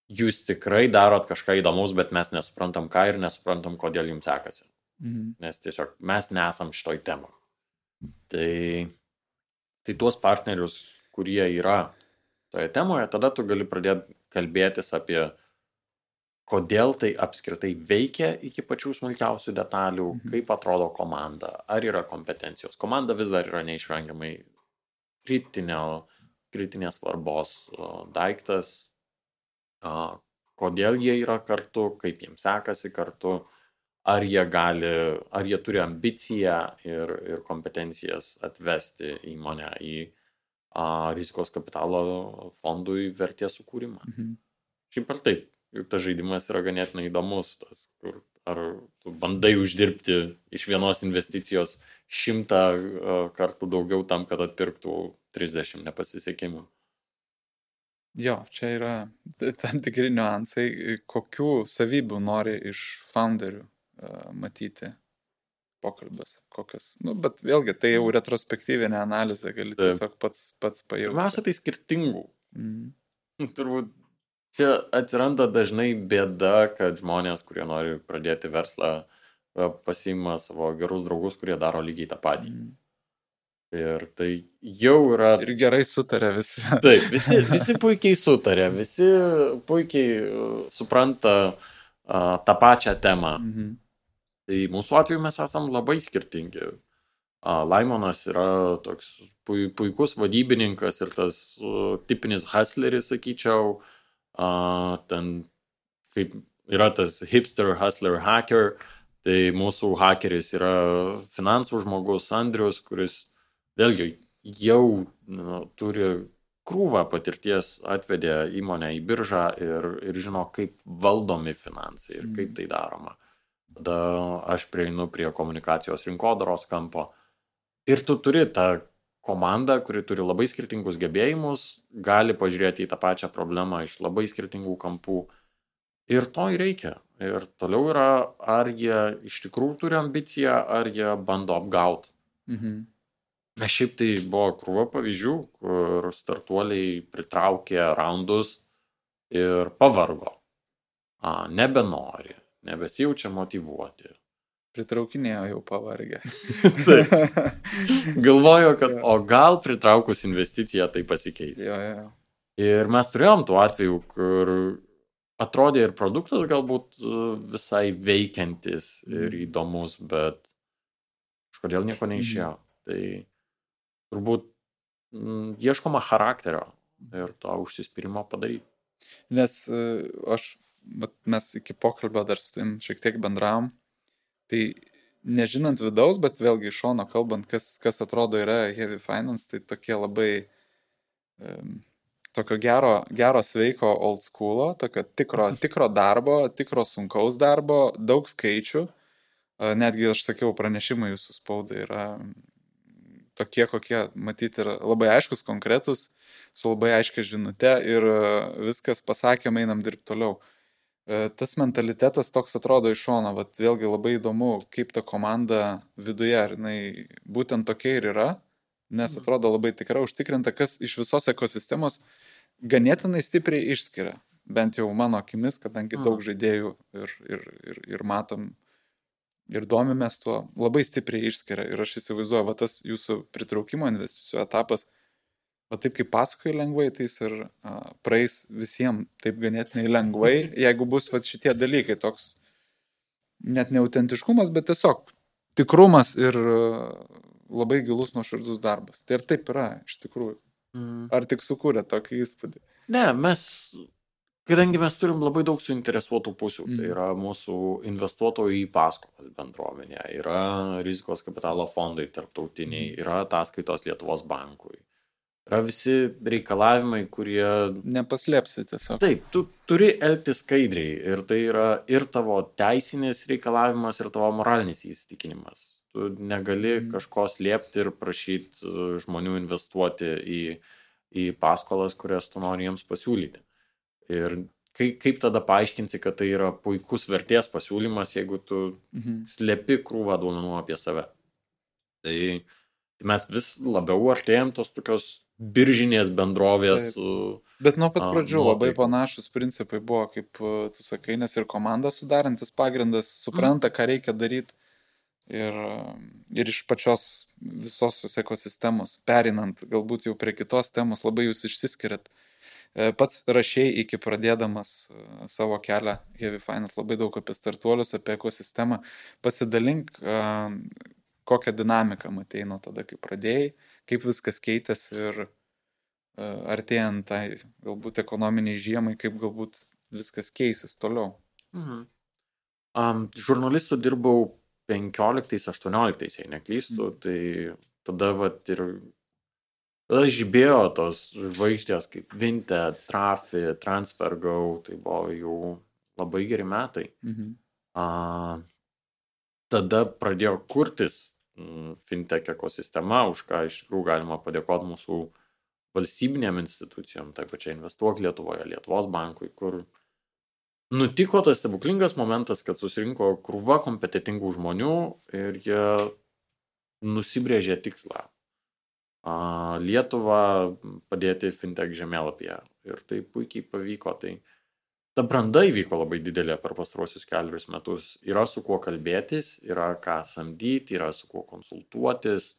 jūs tikrai darot kažką įdomus, bet mes nesuprantam ką ir nesuprantam, kodėl jums sekasi. Nes tiesiog mes nesam šitoj temą. Tai tuos partnerius, kurie yra toje temoje, tada tu gali pradėti kalbėtis apie, kodėl tai apskritai veikia iki pačių smulkiausių detalių, kaip atrodo komanda, ar yra kompetencijos. Komanda vis dar yra neišvengiamai kritinės svarbos daiktas, kodėl jie yra kartu, kaip jiems sekasi kartu, ar jie turi ambiciją ir kompetencijas atvesti įmonę į rizikos kapitalo fondui vertės sukūrimą. Šiaip ar taip, juk tas žaidimas yra ganėtinai įdomus, kur ar tu bandai uždirbti iš vienos investicijos 100 kartų daugiau tam, kad atpirktų 30 nepasisekimų. Jo, čia yra tam tikri niuansai, kokių savybių nori iš founderių matyti pokalbis, kokias, bet vėlgi tai jau retrospektyvinė analizė, gali tiesiog pats pajausti. Pirmiausia, tai skirtingų. Turbūt čia atsiranda dažnai bėda, kad žmonės, kurie nori pradėti verslą, pasiima savo gerus draugus, kurie daro lygiai tą patį. Ir tai jau yra... Ir gerai sutarė visi. Taip, visi puikiai sutarė, visi puikiai supranta tą pačią temą. Tai mūsų atveju mes esam labai skirtingi. Laimonas yra toks puikus vadybininkas ir tas tipinis hustleris, sakyčiau. Ten kaip yra tas hipster, hustler, hacker. Tai mūsų hakeris yra finansų žmogus Andrius, kuris vėlgi jau turi krūvą patirties, atvedė įmonę į biržą ir žino, kaip valdomi finansai ir kaip tai daroma. Tada aš prieinu prie komunikacijos rinkodaros kampo. Ir tu turi tą komandą, kuri turi labai skirtingus gebėjimus, gali pažiūrėti į tą pačią problemą iš labai skirtingų kampų. Ir to ir reikia. Ir toliau yra, ar jie iš tikrųjų turi ambiciją, ar jie bando apgauti. Nes šiaip tai buvo krūva pavyzdžių, kur startuoliai pritraukė raundus ir pavargo. Nebenori. Nebesijaučia motyvuoti. Pritraukinėjo jau pavargę. Taip. Galvojo, kad o gal pritraukus investiciją tai pasikeis. Jo. Ir mes turėjom tų atvejų, kur atrodė ir produktas galbūt visai veikiantis ir įdomus, bet kažkodėl nieko neišėjo. Tai turbūt ieškoma charakterio ir to užsispyrimo padaryti. Nes mes iki pokalbio dar su tim šiek tiek bendravom, tai nežinant vidaus, bet vėlgi iš šono kalbant, kas atrodo yra heavy finance, tai tokie labai tokio gero sveiko old schoolo, tokio tikro darbo, tikro sunkaus darbo, daug skaičių, netgi aš sakiau, pranešimai jūsų spaudai yra tokie, kokie matyti yra labai aiškus, konkretus, su labai aiškia žinute ir viskas pasakėm, einam dirbti toliau. Tas mentalitetas toks atrodo iš šono, vėlgi labai įdomu, kaip ta komanda viduje, ar jinai būtent tokia ir yra, nes atrodo labai tikrai užtikrinta, kas iš visos ekosistemos ganėtinai stipriai išskiria, bent jau mano akimis, kadangi daug žaidėjų ir matom ir domimės tuo, labai stipriai išskiria ir aš įsivaizduoju, tas jūsų pritraukimo investicijų etapas O taip kaip pasakoji lengvai, tai jis ir praeis visiems taip ganėtinai lengvai, jeigu bus vat šitie dalykai, toks net neautentiškumas, bet tiesiog tikrumas ir labai gilus nuoširdus darbas. Tai ir taip yra, iš tikrųjų. Ar tik sukūrė tokį įspūdį? Ne, kadangi mes turim labai daug suinteresuotų pusių, tai yra mūsų investuotojų į paskolas bendruomenė, yra rizikos kapitalo fondai tarptautiniai, yra ataskaitos Lietuvos bankui. Yra visi reikalavimai, kurie... Nepaslėpsi tiesiog. Taip, tu turi elgtis skaidriai ir tai yra ir tavo teisinis reikalavimas, ir tavo moralinis įsitikinimas. Tu negali kažko slėpti ir prašyti žmonių investuoti į paskolas, kurias tu nori jiems pasiūlyti. Ir kaip tada paaiškinsi, kad tai yra puikus vertės pasiūlymas, jeigu tu slėpi krūvą duomenų apie save. Tai mes vis labiau artėjom tos tokios biržinės bendrovės. Bet nuo pat pradžių labai panašus principai buvo, kaip tu sakai, nes ir komanda sudarantis pagrindas supranta, ką reikia daryti. Ir iš pačios visos ekosistemos, perinant galbūt jau prie kitos temos, labai jūs išsiskiriat. Pats rašėjai iki pradėdamas savo kelią Heavy Finance labai daug apie startuolius, apie ekosistemą. Pasidalink, kokią dinamiką matei nuo tada, kai pradėjai, kaip viskas keitėsi ir artėjant tai galbūt ekonominiai žiemai, kaip galbūt viskas keisis toliau. Žurnalistų dirbau 15-18, jei neklystu, tai tada tada žibėjo tos žvaigždės kaip Vinted, Trafi, TransferGo, tai buvo jau labai geri metai. Tada pradėjo kurtis fintech ekosistema, už ką iš tikrųjų galima padėkoti mūsų valstybinėm institucijom, tai pačiai Investuok Lietuvoje, Lietuvos bankui, kur nutiko tas stebuklingas momentas, kad susirinko krūva kompetitingų žmonių ir jie nusibrėžė tikslą. Lietuvą padėti fintech žemėlapyje. Ir tai puikiai pavyko. Tai ta branda įvyko labai didelė per pastaruosius 4 metus. Yra su kuo kalbėtis, yra ką samdyti, yra su kuo konsultuotis,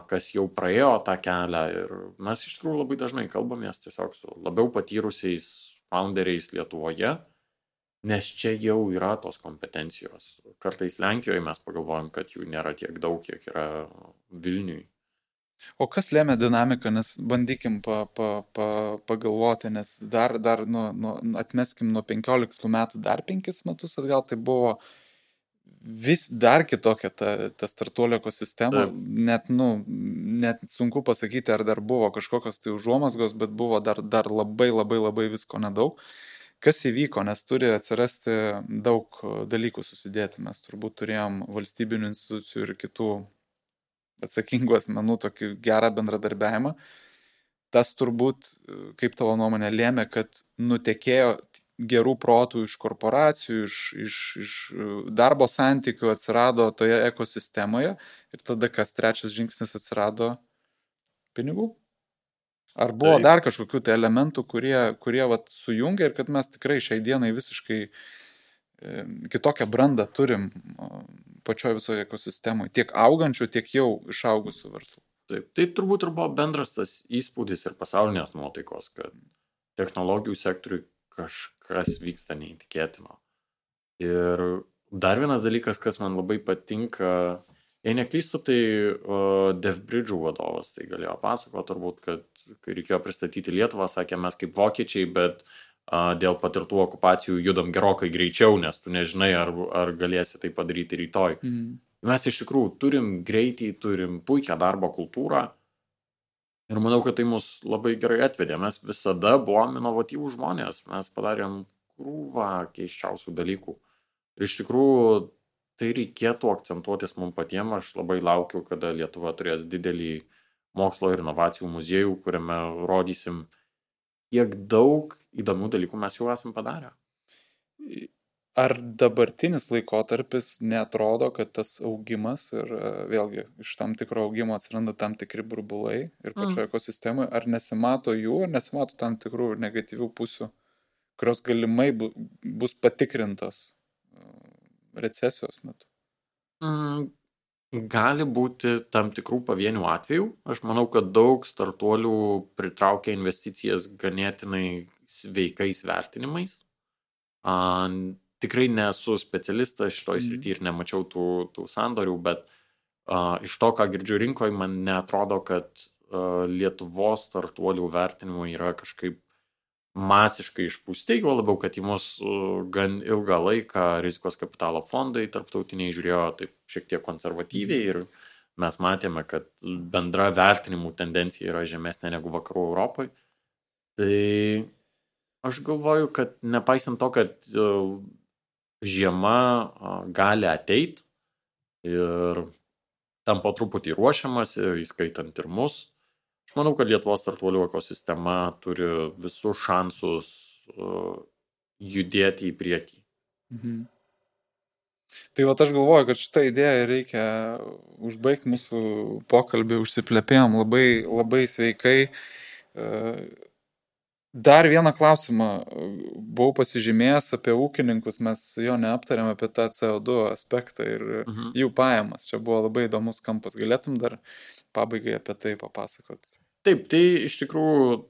kas jau praėjo tą kelią. Ir mes iš tikrųjų labai dažnai kalbamės tiesiog su labiau patyrusiais founderiais Lietuvoje, nes čia jau yra tos kompetencijos. Kartais Lenkijoje mes pagalvojam, kad jų nėra tiek daug, kiek yra Vilniui. O kas lėmė dinamiką, nes bandykim pagalvoti, nes dar atmeskim nuo 15 metų, dar 5 metus atgal, tai buvo vis dar kitokia ta startuolio ekosistema, net sunku pasakyti, ar dar buvo kažkokios tai užuomazgos, bet buvo dar labai visko nedaug. Kas įvyko, nes turi atsirasti daug dalykų susidėti, mes turbūt turėjom valstybinių institucijų ir kitų atsakingų asmenų tokį gerą bendradarbiavimą. Tas turbūt, kaip tavo nuomonė, lėmė, kad nutekėjo gerų protų iš korporacijų, iš darbo santykių atsirado toje ekosistemoje ir tada kas trečias žingsnis atsirado pinigų. Ar buvo dar kažkokių tai elementų, kurie sujungia ir kad mes tikrai šiai dienai visiškai kitokią brandą turim pačioje visoje ekosistemoje, tiek augančių, tiek jau išaugusių verslų. Taip, tai turbūt ir buvo bendras tas įspūdis ir pasaulinės nuotaikos, kad technologijų sektoriui kažkas vyksta neįtikėtino. Ir dar vienas dalykas, kas man labai patinka, jei neklystu, tai DevBridge'ų vadovas tai galėjo pasakoti turbūt, kad kai reikėjo pristatyti Lietuvą, sakė, mes kaip vokiečiai, bet dėl patirtų okupacijų judam gerokai greičiau, nes tu nežinai, ar galėsi tai padaryti rytoj. Mes iš tikrųjų turim greitį, turim puikią darbo kultūrą ir manau, kad tai mus labai gerai atvedė. Mes visada buvom inovatyvūs žmonės, mes padarėm krūvą keiščiausių dalykų. Ir iš tikrųjų tai reikėtų akcentuotis mums patiems. Aš labai laukiu, kada Lietuva turės didelį mokslo ir inovacijų muziejų, kuriame rodysim, kiek daug įdomių dalykų mes jau esam padarę. Ar dabartinis laikotarpis neatrodo, kad tas augimas ir vėlgi iš tam tikro augimo atsiranda tam tikri burbulai ir pačioje ekosistemoje, ar nesimato jų, ar nesimato tam tikrų negatyvių pusių, kurios galimai bus patikrintos recesijos metu? Gali būti tam tikrų pavienių atvejų. Aš manau, kad daug startuolių pritraukia investicijas ganėtinai sveikais vertinimais. Tikrai nesu specialistas šitoj srity ir nemačiau tų sandorių, bet iš to, ką girdžiu rinkoje, man neatrodo, kad Lietuvos startuolių vertinimai yra kažkaip masiškai išpūsti, juo labiau, kad į mus gan ilgą laiką rizikos kapitalo fondai tarptautiniai žiūrėjo taip šiek tiek konservatyviai ir mes matėme, kad bendra vertinimų tendencija yra žemesnė negu vakarų Europoje. Tai aš galvoju, kad nepaisant to, kad žiema gali ateit ir tam po truputį ruošiamas, įskaitant ir mus, aš manau, kad Lietuvos startuolių ekosistema turi visus šansus judėti į priekį. Tai aš galvoju, kad šitą idėją reikia užbaigti mūsų pokalbį, užsiplepėjom labai, labai sveikai. Dar vieną klausimą buvau pasižymėjęs apie ūkininkus, mes jo neaptarėm apie tą CO2 aspektą ir jų pajamas. Čia buvo labai įdomus kampas. Galėtum dar pabaigai apie tai papasakot? Taip, tai iš tikrųjų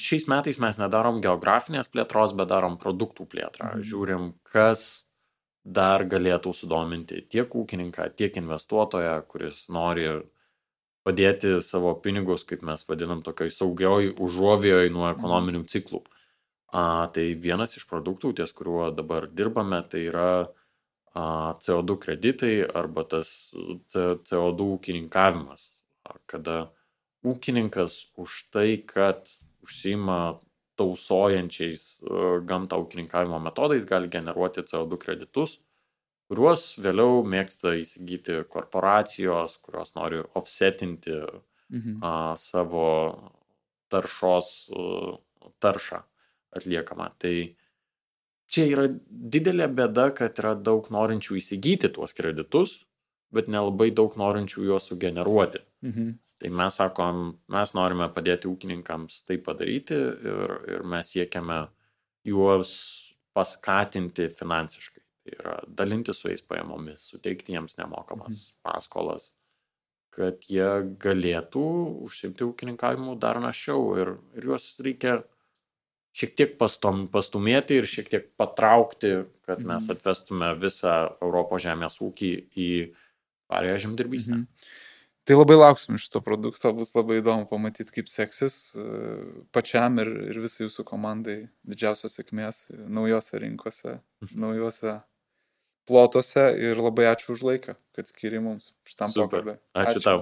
šiais metais mes nedarom geografinės plėtros, bet darom produktų plėtrą. Žiūrim, kas dar galėtų sudominti tiek ūkininką, tiek investuotoją, kuris nori padėti savo pinigus, kaip mes vadinam, tokioj saugioj užuovėjoj nuo ekonominių ciklų. Tai vienas iš produktų, ties kuriuo dabar dirbame, tai yra CO2 kreditai arba tas CO2 ūkininkavimas, kada ūkininkas už tai, kad užsiima tausojančiais gamtą ūkininkavimo metodais, gali generuoti CO2 kreditus, kuriuos vėliau mėgsta įsigyti korporacijos, kurios nori offsetinti savo taršą atliekamą. Tai čia yra didelė bėda, kad yra daug norinčių įsigyti tuos kreditus, bet nelabai daug norinčių juos sugeneruoti. Tai mes sakom, mes norime padėti ūkininkams tai padaryti ir mes siekiame juos paskatinti finansiškai. Tai yra dalinti su jais pajamomis, suteikti jiems nemokamas paskolas, kad jie galėtų užsiimti ūkininkavimu dar našiau ir juos reikia šiek tiek pastumėti ir šiek tiek patraukti, kad mes atvestume visą Europos žemės ūkį į tvarią žemdirbystę. Tai labai lauksim šito produkto, bus labai įdomu pamatyti, kaip seksis pačiam ir visai jūsų komandai. Didžiausios sėkmės naujose rinkose, naujose plotuose ir labai ačiū už laiką, kad skiri mums šitam pokalbį. Ačiū tau.